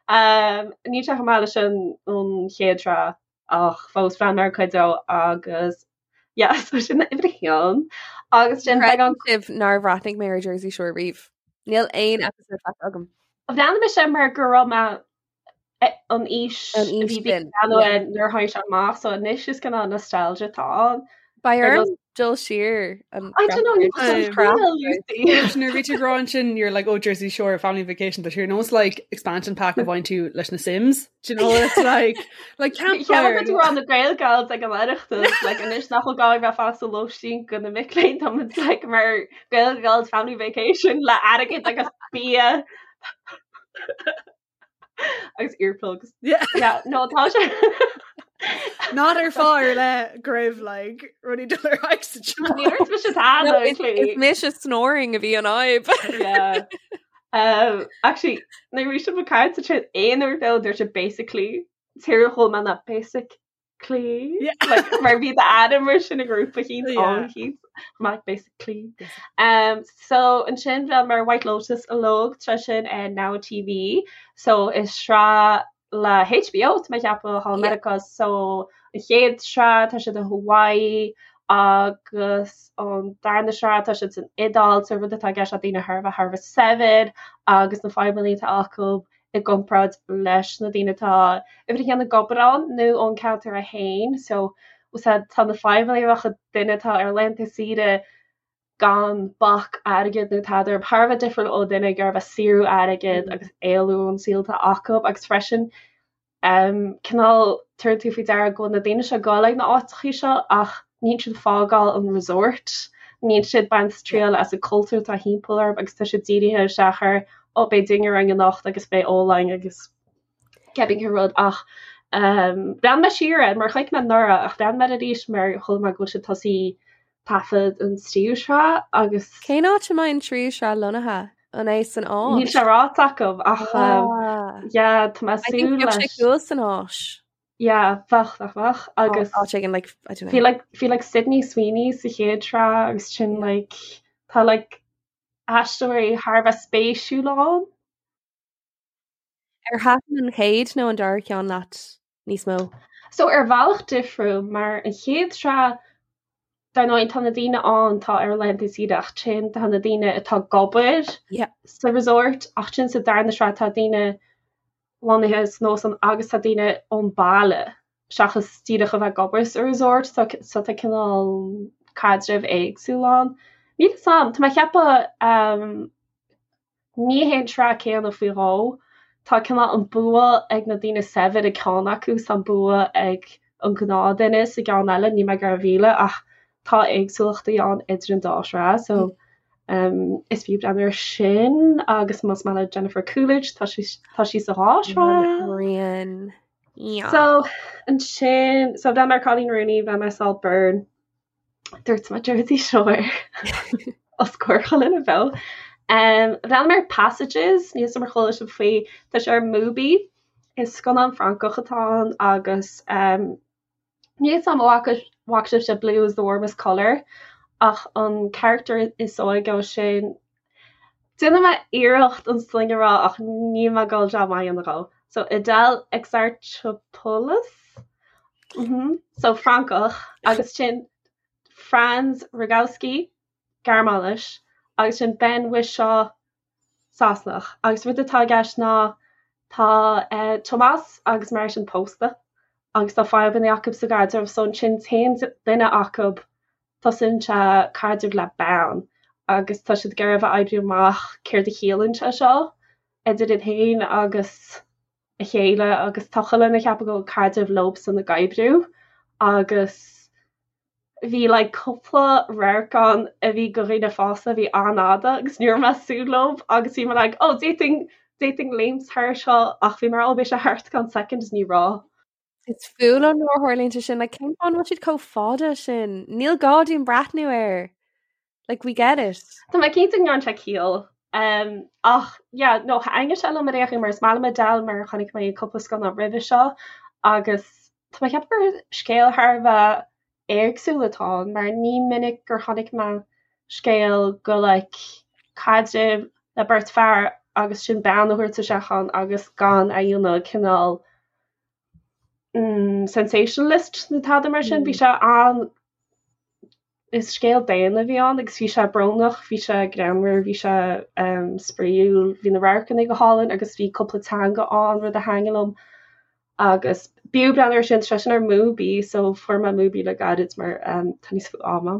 E: Um, níl sé chomh maith leis an an chéad sraith ach fós bhreathnaigh mé ar cuid dó agus yeah, so sin uimhir a haon agus sin
C: beagán sibh nár bhreathnaigh mé ar Jersey Shore riamh. Níl aon episode feicthe agam.
E: Bhreathnaigh mise mar go raibh mé an aois
C: An aois
E: a bhí
C: sin,
E: yeah. nuair a tháinig sé amach, so anois is cineál nostalgia atá ann.
C: Beidh orm dul siar an
E: I don't know,
D: Nuair a bhí tú ag rá ansin you're like oh Jersey Shore family vacation tá sé ar nós like expansion pack a bhain tú leis na Sims. Do you know it's like like
E: campfire. Ceapaim go raibh na Gael Gals ag an Oireachtas like anois nach bhfuil gá bheith fásta lóistín do na mic léinn tá muid like mar Gael Gals family vacation le airgead agus bia. agus earplugs.
D: Yeah.
E: Yeah, no tá sé.
D: Not ar fáth ar leith go raibh like rudaí dul ar aghaidh sa
E: teach. Ní raibh mise tada,
C: No, is-
E: actually.
C: is mise snoring a bhí an fhadhb.
E: Yeah. Um, actually, nuair a bhí sibh ag caint sa traein aon uair beo dúirt sé basically tír chomh maith ná basic Clí like, mar bhí d'ainm mar sin i ngrúpa eicínt
D: Yeah.
E: ann eicínt like basically. Um, so ansin bhreathnaigh mé ar White Lotus uilig tá sin ar Now TV so is sraith le HBO tá mé ag ceapadh thall i
C: Yeah.
E: Meiriceá so an chéad sraith tá siad i Hawaii agus an darna sraith tá siad san Iodáil so rud atá i gceist ná daoine thar a bheith thar a bheith saibhir agus na fadhbanna atá acu i gcomparáid leis na daoine atá uimhir a haon ag obair ann nó ón ceantar é féin so tá na fadhbanna a bheadh ag duine atá ar laethanta saoire gan bac airgid nó tada orthu thar a bheith difriúil ó duine ag iarraidh a bheith ag saothrú airgid agus éalú ón saol atá acu agus freisin um cineál tabharann tú faoi deara go bhfuil na daoine seo ag dul ag na áiteachaí seo ach níl siad ag fágáil an resort, níl siad ag baint triail as an cultúr atá thimpeall orthu agus tá siad dírithe isteach ar oh beidh dinnéar againn anocht agus beidh ól againn agus cibé cén rud ach um bhreathnaigh mé siar air mar chonaic mé anuraidh ach bhreathnaigh mé air arís mar chuala mé go bhfuil siad tosaí taifead an tríú sraith agus
C: Cén áit a mbeidh an tríú sraith lonnaithe? An é san
E: Níl
C: Áis?
E: sé ráite acu ach um,
C: Ah.
E: yeah, tá mé
C: I think
E: súil
C: bheadh sé
E: leis.
C: cool san Áis.
E: Yeah, bheadh, bheadh, bheadh agus
C: Áit éigin like, I don't
E: bhí
C: know.
E: like bhí like Sydney Sweeney sa chéad sraith agus sin like tá like aisteoirí thar a bheith spéisiúil ann.
C: Ar thaitin an chéad nó an dara ceann leat níos mó?
E: So ar bhealach difriúil mar an chéad sraith dar ndóigh tá na daoine ann atá ar laethanta saoire ach sin tá na daoine atá ag obair
C: Yeah.
E: sa resort ach sin sa darna sraith tá daoine lonnaithe san óstán agus tá daoine ón baile seachas díreach a bheith ag obair sa resort so so tá cineál caidreamh éagsúil ann. Níl fhios a'm, tá mé ag ceapadh um, ní hé an tsraith céanna faoi dhó. Tá cineál an bua ag na daoine saibhir i gceann acu is an bua ag an gnáthdhuine sa gceann eile, níl mé ag iarraidh a mhilleadh ach tá éagsúlachtaí ann idir an dá shraith so um, is fiú breathnú ar sin agus más maith le Jennifer Coolidge tá sí tá sí sa dhá shraith.
C: Rian. Yeah.
E: So ansin so bhreathnaigh mé ar Coleen Rooney, bhreathnaigh mé ar Saltburn, dúirt mé Jersey Shore os comhair chuile dhuine beo. Um, bhreathnaigh mé ar Passages, níl fhios a'm ar chuala sibh faoi, tá sé ar Mubi, is scannán Francach atá ann agus um, níl fhios a'm an bhfaca bhfaca sibhse Blue is the Warmest Colour ach an character is óige ó sin Déanfaidh mé iarracht an sloinne a rá ach níl mé ag dul jab maith a dhéanamh dhó. So Adèle Exarchopoulos? Mhm. So Francach agus sin Franz Rogowski, Gearmáinis, agus sin Ben Whishaw, Sasanach. Agus rud atá i gceist ná tá eh, Tomás agus Martin pósta agus tá fadhbanna acu sa gcaidreamh so ansin téann duine acu Tosaíonn sé caidreamh le bean agus tá siad ag iarraidh a bheith oibriú amach céard a chiallaíonn sé seo idir iad féin agus a chéile agus tá chuile dhuine ag ceapadh go bhfuil caidreamh leobsan ag oibriú agus bhí like cúpla radharc ann a bhí go dhaoine fásta a bhí an-fhada agus ní raibh mé ag súil leo agus bhí mé like oh d'fhéadfainn d'fhéadfainn léimt thar seo ach bhí mé oh beidh sé thart i gceann soicind is ní raibh.
C: Is fuath liom nuair a tharlaíonn sé sin, like, cén fáth an bhfuil siad chomh fada sin? Níl gá dúinn breathnú air. Like, we get it.
E: Tá mé cinnte go ndearna sé ciall. Um, ach, yeah, no, thaitnigh sé liom ar aon chaoi mar is maith liom Adele mar chonaic mé cúpla scannán roimhe seo agus tá mé ag ceapadh gur scéal thar a bheith éagsúil atá ann mar ní minic gur chonaic mé scéal go like caidreamh le beirt fear agus sin bean a thabhairt isteach ann agus gan a dhéanamh cineál mm, sensationalist nó tada mar sin. Bhí sé an is scéal daonna a bhí ann agus bhí sé brónach, bhí sé greannmhar, bhí sé um, spraíúil, bhí na radharcanna go hálainn agus bhí cúpla teanga ann rud a thaitnigh liom. Agus b'fhiú breathnú air sin, tá sé sin ar Mubi so fuair mé Mubi le gairid mar um, tá níos mó ama.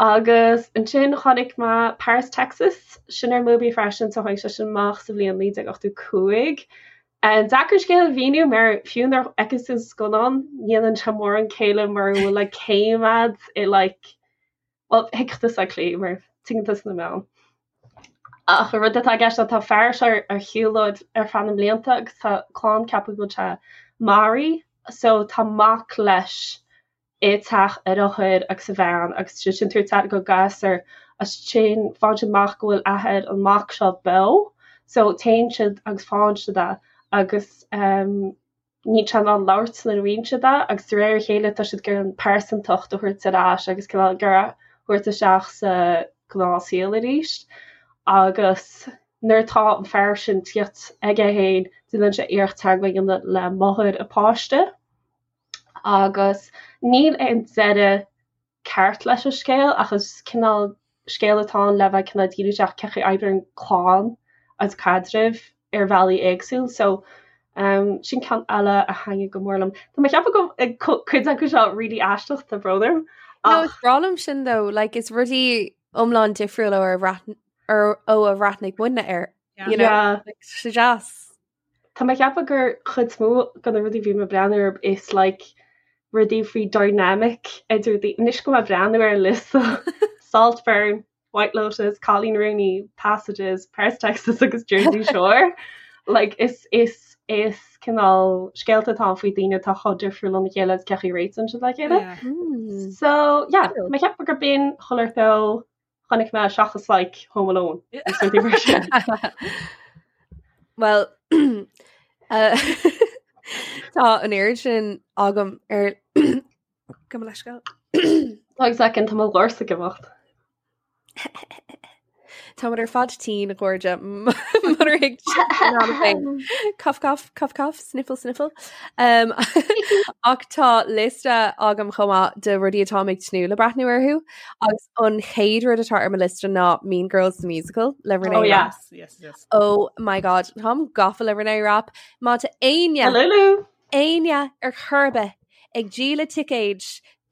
E: Agus ansin chonaic mé Paris, Texas, sin ar Mubi freisin so tháinig sé sin amach sa bhliain 1985. An deacair scéal a mhíniú mar fiú nuair a fheiceann tú an scannán ní dhéanann sé mórán céille mura bhfuil like céim a'd i like Bhuel, thuigfeadh tusa Clí mar tuigeann tusa na meáin. Ach an rud atá i gceist ná tá fear seo ar shiúlóid ar feadh na mblianta agus tá clann ag ceapadh go bhfuil sé maraithe so tá mac leis i teach a dheartháir agus a bhean agus tá siad sin ag tabhairt aire don ghasúr agus ansin faigheann siad amach go bhfuil athair an mac seo beo so téann siad agus faigheann siad é agus um, Níl sé in ann labhairt nuair a bhíonn siad é agus de réir a chéile tá siad ag iarraidh an pearsantacht a thabhairt ar ais agus cineál ag iarraidh a thabhairt isteach sa ghnáthshaol arís. Agus nuair atá an fear sin tíocht aige féin déanann sé iarracht teagmháil a dhéanamh le máthair a pháiste agus níl aon deireadh ceart leis an scéal ach is cineál scéal atá ann le bheith cineál díriú isteach cén chaoi a oibríonn clann agus caidrimh ar bhealaí éagsúil so um, sin ceann eile a thaitnigh go mór liom. Tá mé ag ceapadh go bhfuil cuid acu seo really aisteach tá brón orm.
C: No, is breá liom sin though, like is rudaí iomlán difriúil ó ar bhreath- ar- ó a bhreathnaigh muidne air. You know, Yeah. like, sé deas.
E: Tá mé ag ceapadh gur chuid is mó de na rudaí a bhí mé ag breathnú orthu is like rudaí faoi dynamic idir daoine. Anois go mé ag breathnú ar an liosta Saltburn, White Lotus, Cailín Rúnaí, Passages, Paris Texas agus Jersey Shore. Like is is is cineál scéalta atá ann faoi daoine atá chomh difriúil óna chéile agus cén chaoi a réitíonn siad le chéile. Yeah. Mm. So yeah, Cool. mé ag ceapadh gur b'in chuile shórt Chonaic mé seachas like Home Alone agus rudaí mar sin.
C: Well uh, tá an oiread sin agam ar gabh mo leithscéal.
E: Tá second tá mo dhoirse ag imeacht.
C: Táimid ar fad tinn a chairde murar thuig féin. Cough cough cough cough sniffle sniffle. Um, ach tá liosta agam chomh maith de rudaí atáim ag tnúth le breathnú orthu agus an chéad rud atá ar mo liosta ná Mean Girls the Musical le Renee
E: Oh, yeah.
C: Rapp.
D: Yes, yes, yes.
C: Oh my god, táim gafa le Renee Rapp. Má tá éinne
E: Lulu.
C: éinne ar chor ar bith ag díol ticéid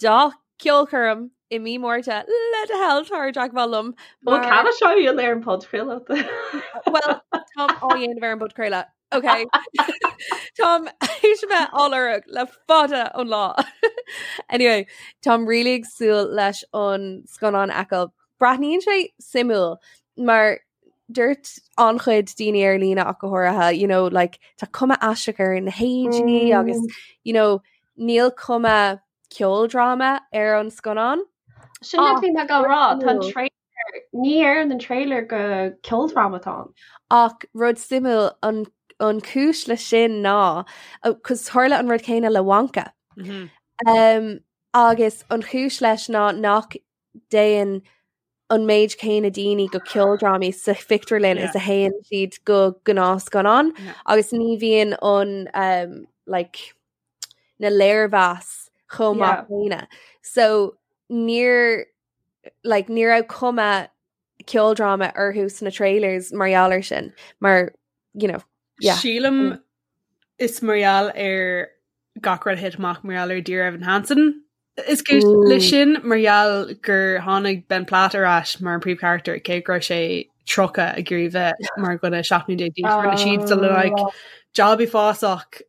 C: dá ceolchoirm i mí Márta le do thoil tar i dteagmháil liom
E: Bhuel mar cad seo dhéanamh ar an podchraoladh?
C: Well táim á dhéanamh ar an bpodchraoladh. Ok Táim théis a bheith á lorg le fada an lá. Anyway, táim really ag súil leis an scannán a fheiceáil. Breathnaíonn sé suimiúil mar dúirt an-chuid daoine ar líne ach go háirithe, you know, like, tá cuma aisteach ar na héadaí agus you know, níl cuma ceoldráma ar an scannán.
E: Sin a bhí mé ag rá, tá an trailer, ní léiríonn an trailer go ceoldráma atá ann.
C: Ach rud suimiúil an an cúis le sin ná cos tharla an rud céanna le Wonka.
D: Mm -hmm.
C: Um, agus an chúis leis ná nach dtéann an méid céanna daoine go ceoldrámaí sa phictiúrlann is a théann siad go gnáthscannán
D: Yeah.
C: agus ní bhíonn an um, like, na léirmheas chomh maith céanna. So níor like, ní raibh cuma ceoldráma orthu sna trailers mar gheall air sin mar you know, yeah.
D: Sílim is mar gheall ar gach rud a thit amach mar gheall ar Dear Evan Hansen. Is cúis le sin mar gheall gur tháinig Ben Platt ar ais mar an príomhcharachtar cé go raibh sé 30 ag iarraidh bheith mar dhuine 17 mbliana d'aois. Rinne siad sort of like job uafásach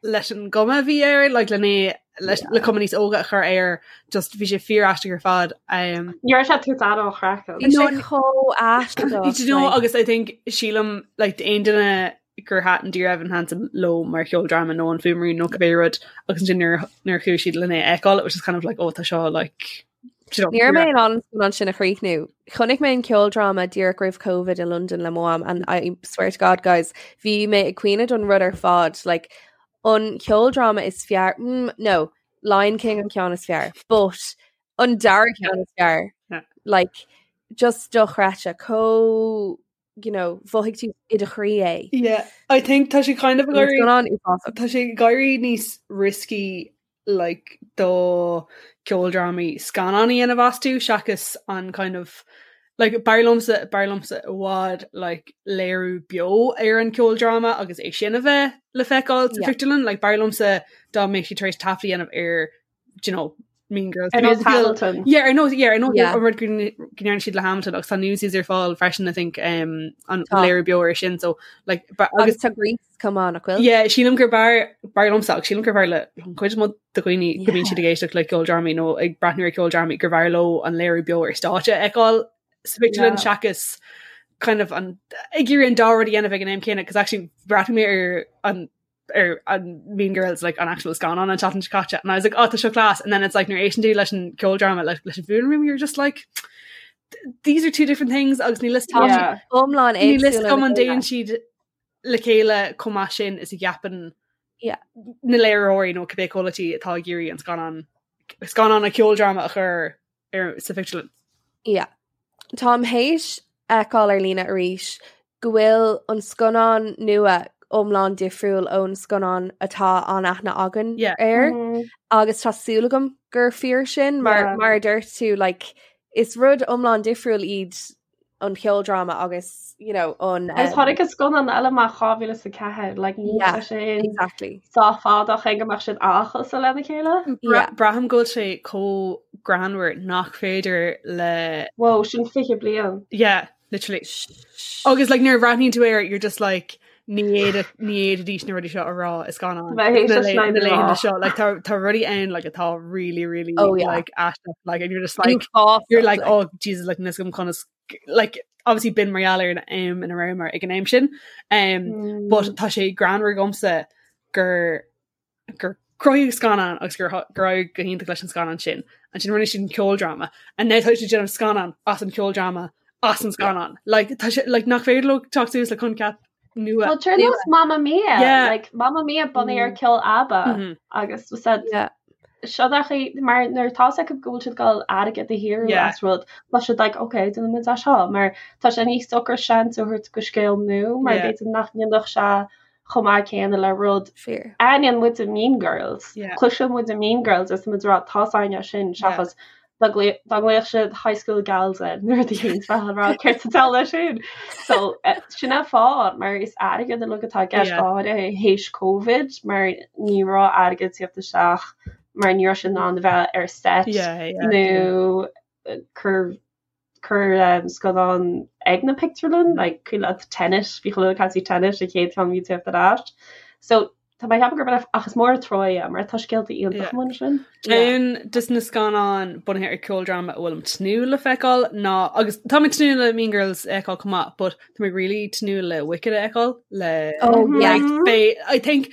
D: leis an gcuma a bhí air like lena leis le cuma níos óga a chur air just bhí sé fíor aisteach ar fad. Um,
E: Ní raibh sé tú an chraiceann.
C: Bhí sé chomh aisteach.
D: You know, agus I think sílim like d'aon duine gur thaitin Dear Evan Hansen leo mar cheoldráma nó an Fuaimrian nó cibé rud agus ansin nuair nuair a chuaigh siad lena é a fheiceáil it was just kind of like oh tá seo like
C: do you know, Ní raibh mé in ann an scannán sin a chríochnú. Chonaic mé an ceoldráma díreach roimh Covid i London le mo mham and I swear to God guys, bhí mé ag caoineadh don rud ar fad like an ceoldráma is fearr mm, no Lion King an ceann is fearr but an dara ceann is fearr
D: Yeah.
C: like just dochreidte chomh you know mhothaigh tú i do chroí é.
D: Yeah, I think tá sé kind of
C: An scannán uafásach.
D: Tá sé ag éirí níos risky like do ceoldrámaí scannán a dhéanamh astu seachas an kind of like b'fhearr liomsa b'fhearr liomsa i bhfad like léiriú beo ar an ceoldráma agus é sin a bheith le feiceáil sa
C: Yeah.
D: phictiúrlann like b'fhearr liomsa dá mbeadh siad tar éis taifead a dhéanamh ar do you know Mean Girls
E: Ar nós Hamilton.
D: Yeah, ar nós yeah, ar nós
C: Yeah.
D: an rud go ndearna siad le Hamilton agus tá Newsies ar fáil freisin I think um, an
C: Tá.
D: léiriú beo ar sin so like ba-
C: Agus tá Grease chomh maith nach bhfuil?
D: Yeah, sílim gur b'fhearr b'fhearr liomsa agus sílim gur b'fhearr le an chuid is mó de dhaoine go mbíonn
C: Yeah.
D: siad ag éisteacht le ceoldrámaí nó ag breathnú ar ceoldrámaí gur b'fhearr leo an léiriú beo ar stáitse a fheiceáil sa phictiúrlann
E: Yeah.
D: seachas kind of an ag iarraidh an dá rud a dhéanamh ag an am céanna, cos actually bhreathnaigh mé ar an ar an Mean Girls like an actual scannán an tseachtain seo caite and I was like oh tá seo class and then it's like nuair a éisteann tú leis an ceoldráma like leis an fuaimrian you're just like these are two different things agus níl fhios
E: Yeah.
C: Iomlán
D: níl fhios
C: éagsúla
D: agam
C: le
D: an
C: chéile.
D: dtéann siad le chéile chomh maith sin is a cheapann
C: Yeah.
D: na léiritheoirí nó cibé comhlachtaí atá ag iarraidh an scannán scannán an ceoldráma a chur ar sa phictiúrlann.
C: Yeah. Táim théis fheiceáil ar líne arís go bhfuil an scannán nua iomlán difriúil ón scannán atá an-aithne againn
D: Yeah.
C: air
E: Mm.
C: agus tá súil agam gur fíor sin mar
E: Yeah.
C: mar a dúirt tú like, is rud iomlán difriúil iad an ceoldráma agus you know, an
E: Agus tháinig an scannán eile amach 2004, like níl
C: Yeah,
E: sé sin
C: exactly.
E: sách fada chun go mbeadh siad an-chosúil lena chéile.
C: Yeah.
D: Braithim go bhfuil sé chomh greannmhar nach féidir le
E: Whoa, sin 20 bliain.
D: Yeah, literally. Agus like nuair a bhreathnaíonn tú air, you're just like ní fhéadfadh ní fhéadfaidís na rudaí seo a rá i scannán
E: Bheith théis
D: na
E: leis
D: na
E: na
D: laethanta
E: rá.
D: seo like tá tá rudaí ann like atá really really
C: Oh, yeah.
D: like aisteach like and you're just like
C: Uafásach,
D: you're like
C: like.
D: oh Jesus like níl fhios agam conas like obviously b'in mar gheall ar an am ina rabhamar ag an am sin um
E: Mm.
D: but tá sé greannmhar dhomsa gur gur cruthaíodh scannán agus gur gur éirigh go hiontach leis an scannán sin. Ansin rinne siad an ceoldráma and now tá siad ag déanamh scannán as an ceoldráma as an scannán. Like tá sé like nach féidir leo teacht suas le coincheap nua.
E: Well, ar nós Mamma Mia,
D: Yeah.
E: like Mamma Mia bunaithe ar ceol ABBA
D: Mhm.
E: agus was said
C: Yeah.
E: seo achaí mar nuair atá fhios acu go bhfuil siad ag gabháil airgead a shaothrú
D: Yeah.
E: as rud tá siad like okay déanfaidh muid é seo mar tá sé níos socra seans a thabhairt do scéal nua mar
D: Yeah.
E: b'fhéidir nach ndéanfadh sé chomh maith céanna le rud
C: Fíor.
E: Aithníonn muid Mean Girls.
D: Yeah.
E: Cloiseann muid Mean Girls is muid ag rá tá fhios againn é sin seachas dá dá nglaofadh siad High School Gals air nuair a bhíonn bheith ag rá céard sa diabhal é sin. So eh, sin an fáth mar is airgead uilig atá i gceist
D: Yeah.
E: go háirithe théis Covid mar ní raibh airgead ag tíocht isteach mar ní raibh siad in ann a bheith ar set
D: Yeah, yeah.
E: nó eh, cur cur um, scannán ag na pictiúrlann, like cuimhin leat Tenet, bhí chuile ag caint faoi Tenet an chéad cheann a bhí ag tíocht ar ais. So tá mé ag ceapadh gurb ach is mór an trua é mar tá scéalta iontacha
D: Yeah.
E: amuigh ansin.
D: Ceann des na scannáin bunaithe ar ceoldráma a bhfuilim tnúth le feiceáil ná agus tá mé tnúth le Mean Girls a fheiceáil chomh maith, but tá mé really tnúth le Wicked a fheiceáil le
C: Oh yeah.
D: like beidh I think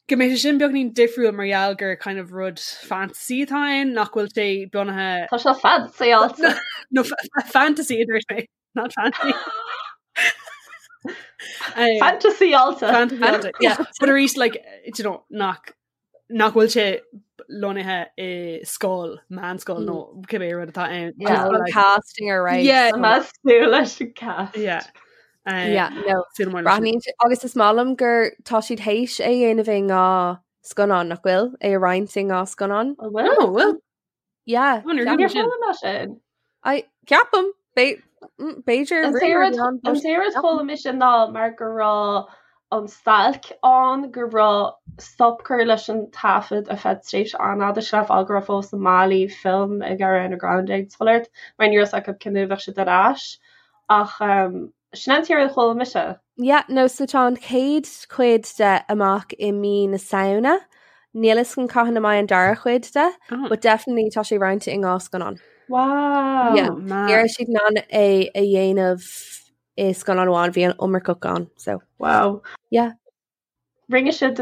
D: go mbeidh sé sin beagnín difriúil mar gheall gur kind of rud fantasy atá ann nach bhfuil sé bunaithe
E: Tá sé fancy
D: no fantasy a dúirt mé not fancy. Um,
E: Fantasy alta.
D: fantasy alta, yeah. But arís like you know nach nach bhfuil sé lonnaithe i scoil meánscoil nó cibé rud atá ann.
E: Yeah.
D: Just
C: An
D: like-
C: casting ar right.
D: Yeah.
E: Tá súil leis an cast.
D: Yeah. Um,
C: Yeah, no.
D: súil mór leis sin.
C: Breathnaíonn sé- agus is maith liom gur tá siad théis é dhéanamh i ndhá scannán nach bhfuil é a roinnt i ndhá scannán.
E: An bhfuil?
D: Oh, well,
C: Yeah.
D: Oh, níor
C: ceapaim.
E: Níor
D: sin.
E: chuala mé sin.
C: I ceapaim mm, b'fhéidir
E: An
C: rumour
E: t-aon
C: ann,
E: an
C: but
E: t-aon rud a chuala mise ná mar go raibh an stailc ann go raibh stop curtha leis an taifead ar feadh tréimhse an-fhada sin an fáth go raibh fós na málaí film ag Ariana Grande ag fulaingt mar ní raibh fhios acu cén uair a bheadh siad ar ais ach um, sin an t-aon rud a chuala mise.
C: Yeah, no, so tá an chéad chuid de amach i mí na Samhna. Níl fhios agam cathain a mbeidh an dara cuid de,
D: Oh.
C: but definitely tá sé roinnte i ndhá scannán.
E: Wow.
C: Yeah.
D: Oh, man.
C: Ní raibh siad in ann é a dhéanamh i scannán amháin bhí an iomarca ann so
E: Wow.
C: Yeah.
E: Rinne siad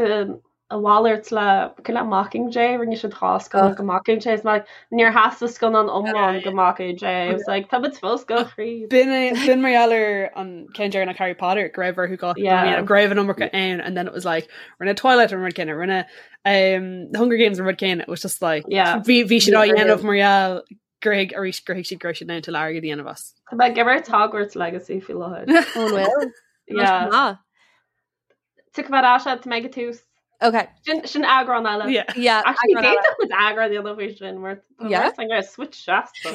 E: a mhalairt le le Mockingjay, rinne siad dhá scannán go Mockingjay is like níor theastaigh scannán iomlán go Mockingjay. It was like tá muid fós go
D: thríd. B'in b'in mar gheall ar an ceann deireanach Harry Potter go raibh orthu dhá Yeah. go raibh an iomarca ann and then it was like rinne Twilight an rud céanna rinne um, the Hunger Games an rud céanna it was just like
E: Yeah.
D: bhí bhí siad á dhéanamh mar gheall gur thuig arís gur thuig siad go raibh siad in ann tuilleadh airgid a dhéanamh as.
E: Tá mé ag imirt Hogwarts Legacy faoi láthair.
C: An bhfuil?
E: Yeah.
C: Ah,
E: Tiocfaidh mé ar ais tá mé ag an tús.
C: okay.
E: Sin sin eagrán eile.
D: Yeah.
C: Yeah.
E: Actually,
C: eagrán eile.
E: d'fhéadfadh muid eagrán a dhéanamh faoi sin mar tá
C: Yeah.
E: mar switch seasta.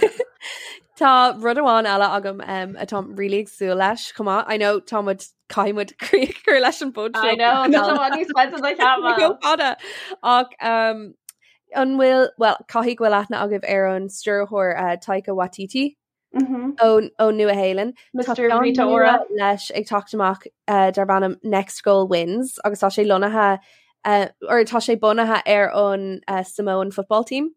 C: Tá rud amháin eile agam um, atá really ag súil leis chomh maith. I know tá muid caithfidh muid críoch a chur leis an bpod
E: I know, tá sé níos faide ná
C: Go
E: cheap.
C: fada. Ach um, an bhfuil well caithfidh go bhfuil aithne agaibh ar an stiúrthóir uh, Taika Waititi ón ón Nua-Shéalainn. Tá
E: Mr.
C: ceann
E: Rita
C: nua
E: Ora.
C: leis ag teacht amach uh, darb ainm Next Goal Wins agus tá sé lonnaithe uh, or tá sé bunaithe ar an uh, Samoan football team.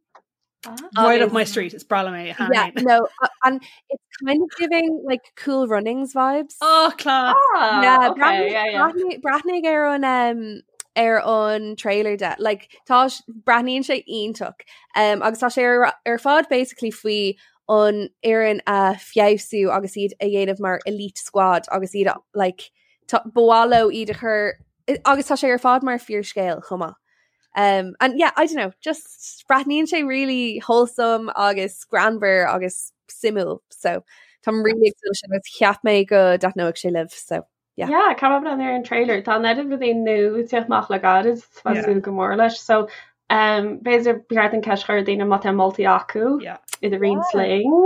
D: Right up
C: Agus-
D: my street is breá liom é
C: Yeah, no, and it's kind of giving like cool runnings vibes.
D: Oh class.
E: Ah,
C: yeah,
E: okay, yeah, yeah.
C: breathnaigh breathnaigh ar an um, ar an trailer de like tá breathnaíonn sé iontach um, agus tá sé ar, ar fad basically faoi an fhoireann a feabhsú agus iad a dhéanamh mar elite squad agus iad a- like tá- ba mhaith leo iad a chur agus tá sé ar fad mar fíorscéal chomh maith. Um, and yeah, I don't know, just breathnaíonn sé really wholesome agus greannmhar agus suimiúil so táim really ag súil sin agus cheap mé go dtaitneodh sé libh so yeah.
E: Yeah, caithfidh mé breathnú ar an trailer. Tá an oiread rudaí nua ag teacht amach le gairid tá
D: Yeah.
E: súil go mór leis. So um, b'fhéidir ba cheart an ceist a chur ar daoine má tá moltaí acu
D: Yeah.
E: iad a roinnt linn.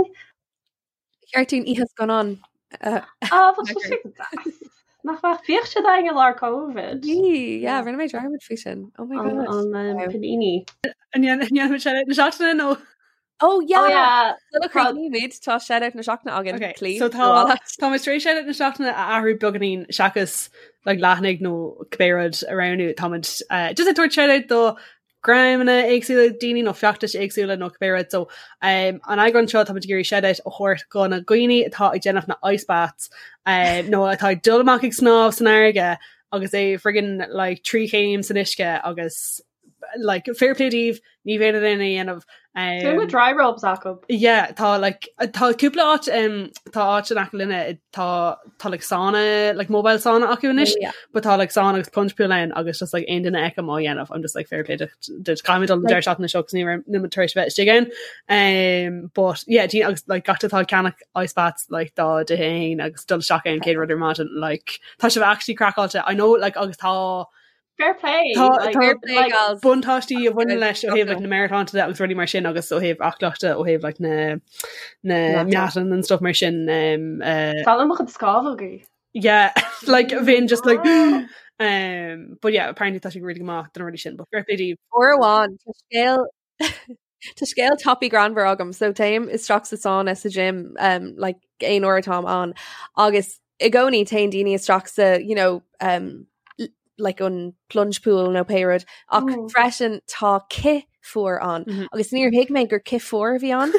C: Cheart dúinn oíche scannán
E: Ah, bheadh sé sin deas. Nach mbeadh bhíodh siad againn i lár Covid.
C: Bhí, yeah, rinne mé dearmad faoi sin. Oh my
E: An
C: god.
E: an um, Panini.
D: An ndéanfaimid shout na seachtaine nó
C: Oh yeah,
E: Oh yeah.
C: Sula
E: Tá-
C: chríochnaímid tá shout na seachtaine againn
D: Okay,
C: Clí.
D: so tá tá muid tar éis shout na seachtaine a athrú beagáinín seachas like, leathanaigh nó cibé rud a roghnú táimid uh, just ag tabhairt shout do dhreamanna éagsúla daoine nó feachtais éagsúla nó cibé rud so um, an eagrán seo táimid ag iarraidh shout a thabhairt go na dhaoine atá ag déanamh na ice baths um, nó atá ag dul amach ag snámh san fharraige agus é friggin like trí chéim san uisce agus like fair play daoibh ní bhéad duine a dhéanamh
E: Tá
D: um,
E: dry robes acu.
D: Yeah, tá like tá cúpla áit um, tá áit in aice linne tá tá like sauna like mobile sauna acu anois
C: Yeah.
D: but tá like sauna agus plunge pool ann agus just like aon duine a fheicim á dhéanamh I'm just like fair play duit caithfidh mé dul an deireadh seachtaine seo 'cause ní raibh níl mé tar éis bheith istigh ann um, but yeah daoine agus like gach atá ag ceannach ice baths like dá dtithe féin agus dul isteach ann céad rud ar maidin like tá sibh actually craiceáilte I know like agus tá
E: Fair play.
D: Tá-
E: like,
D: tá-
C: Fair play,
E: like,
C: gals.
D: buntáistí a bhaineann leis ó thaobh like,
C: Definitely.
D: na meabhairshláinte de agus rudaí mar sin agus ó thaobh aclaíochta ó thaobh like, na na
C: Meatáin.
D: meatáin and stuff mar sin um, uh,
E: Tá mo chuid scamhógaí.
D: yeah like bheinn just like um, but yeah apparently tá sé really go maith don rudaí sin but fair play daoibh.
C: Uair amháin tá scéal Tá scéal tapaidh greannmhar agam, so téim isteach sa sauna sa gym um, like aon uair atáim ann agus i gcónaí téann daoine isteach sa you know, um, like an plunge pool nó pé rud ach mm. freisin tá cith fuar ann mm -hmm. agus níor thuig mé gur cith fuar a bhí ann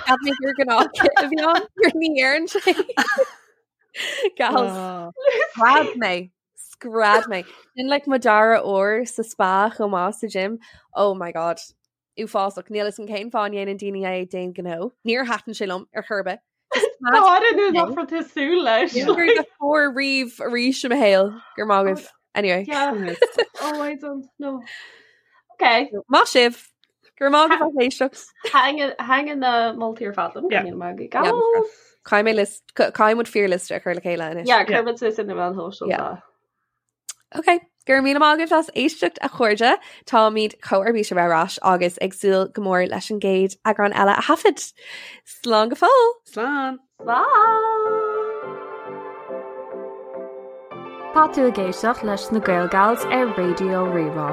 C: Cheap mé gur gnáthchith a bhí ann gur ní dhearn sé Gals
D: Oh.
C: Scread mé Scread mé. Sin like mo dara uair sa spa chomh maith sa gym. Oh my god. Uafásach. Níl a fhios agam cén fáth a ndéanann daoine é d'aon ghnó. Níor thaitin sé liom ar chor ar bith.
E: Tá an nach raibh tú súil leis.
C: Níor raibh fuar riamh arís i mo shaol go raibh maith agaibh. Anyway.
E: Yeah. Oh, I don't know. Okay.
C: Maith sibh. Go raibh maith agaibh as éisteacht.
E: Thaitin na moltaí ar fad liom.
D: Yeah.
E: Go raibh maith agaibh.
C: Caithfidh mé list caithfidh muid fíorliosta a chur le chéile anois.
E: Yeah, cuirfimid suas ar na meáin shóisialta.
C: Ok, go raibh míle maith agaibh as éisteacht a chairde, táimid chomh ar bís a bheith ar ais agus ag súil go mór leis an gcéad eagrán eile a thaifead. Slán go fóill!
D: Slán!
E: Slán!
B: Tá tú ag éisteacht leis na Gael Gals ar Raidió Rí-Rá.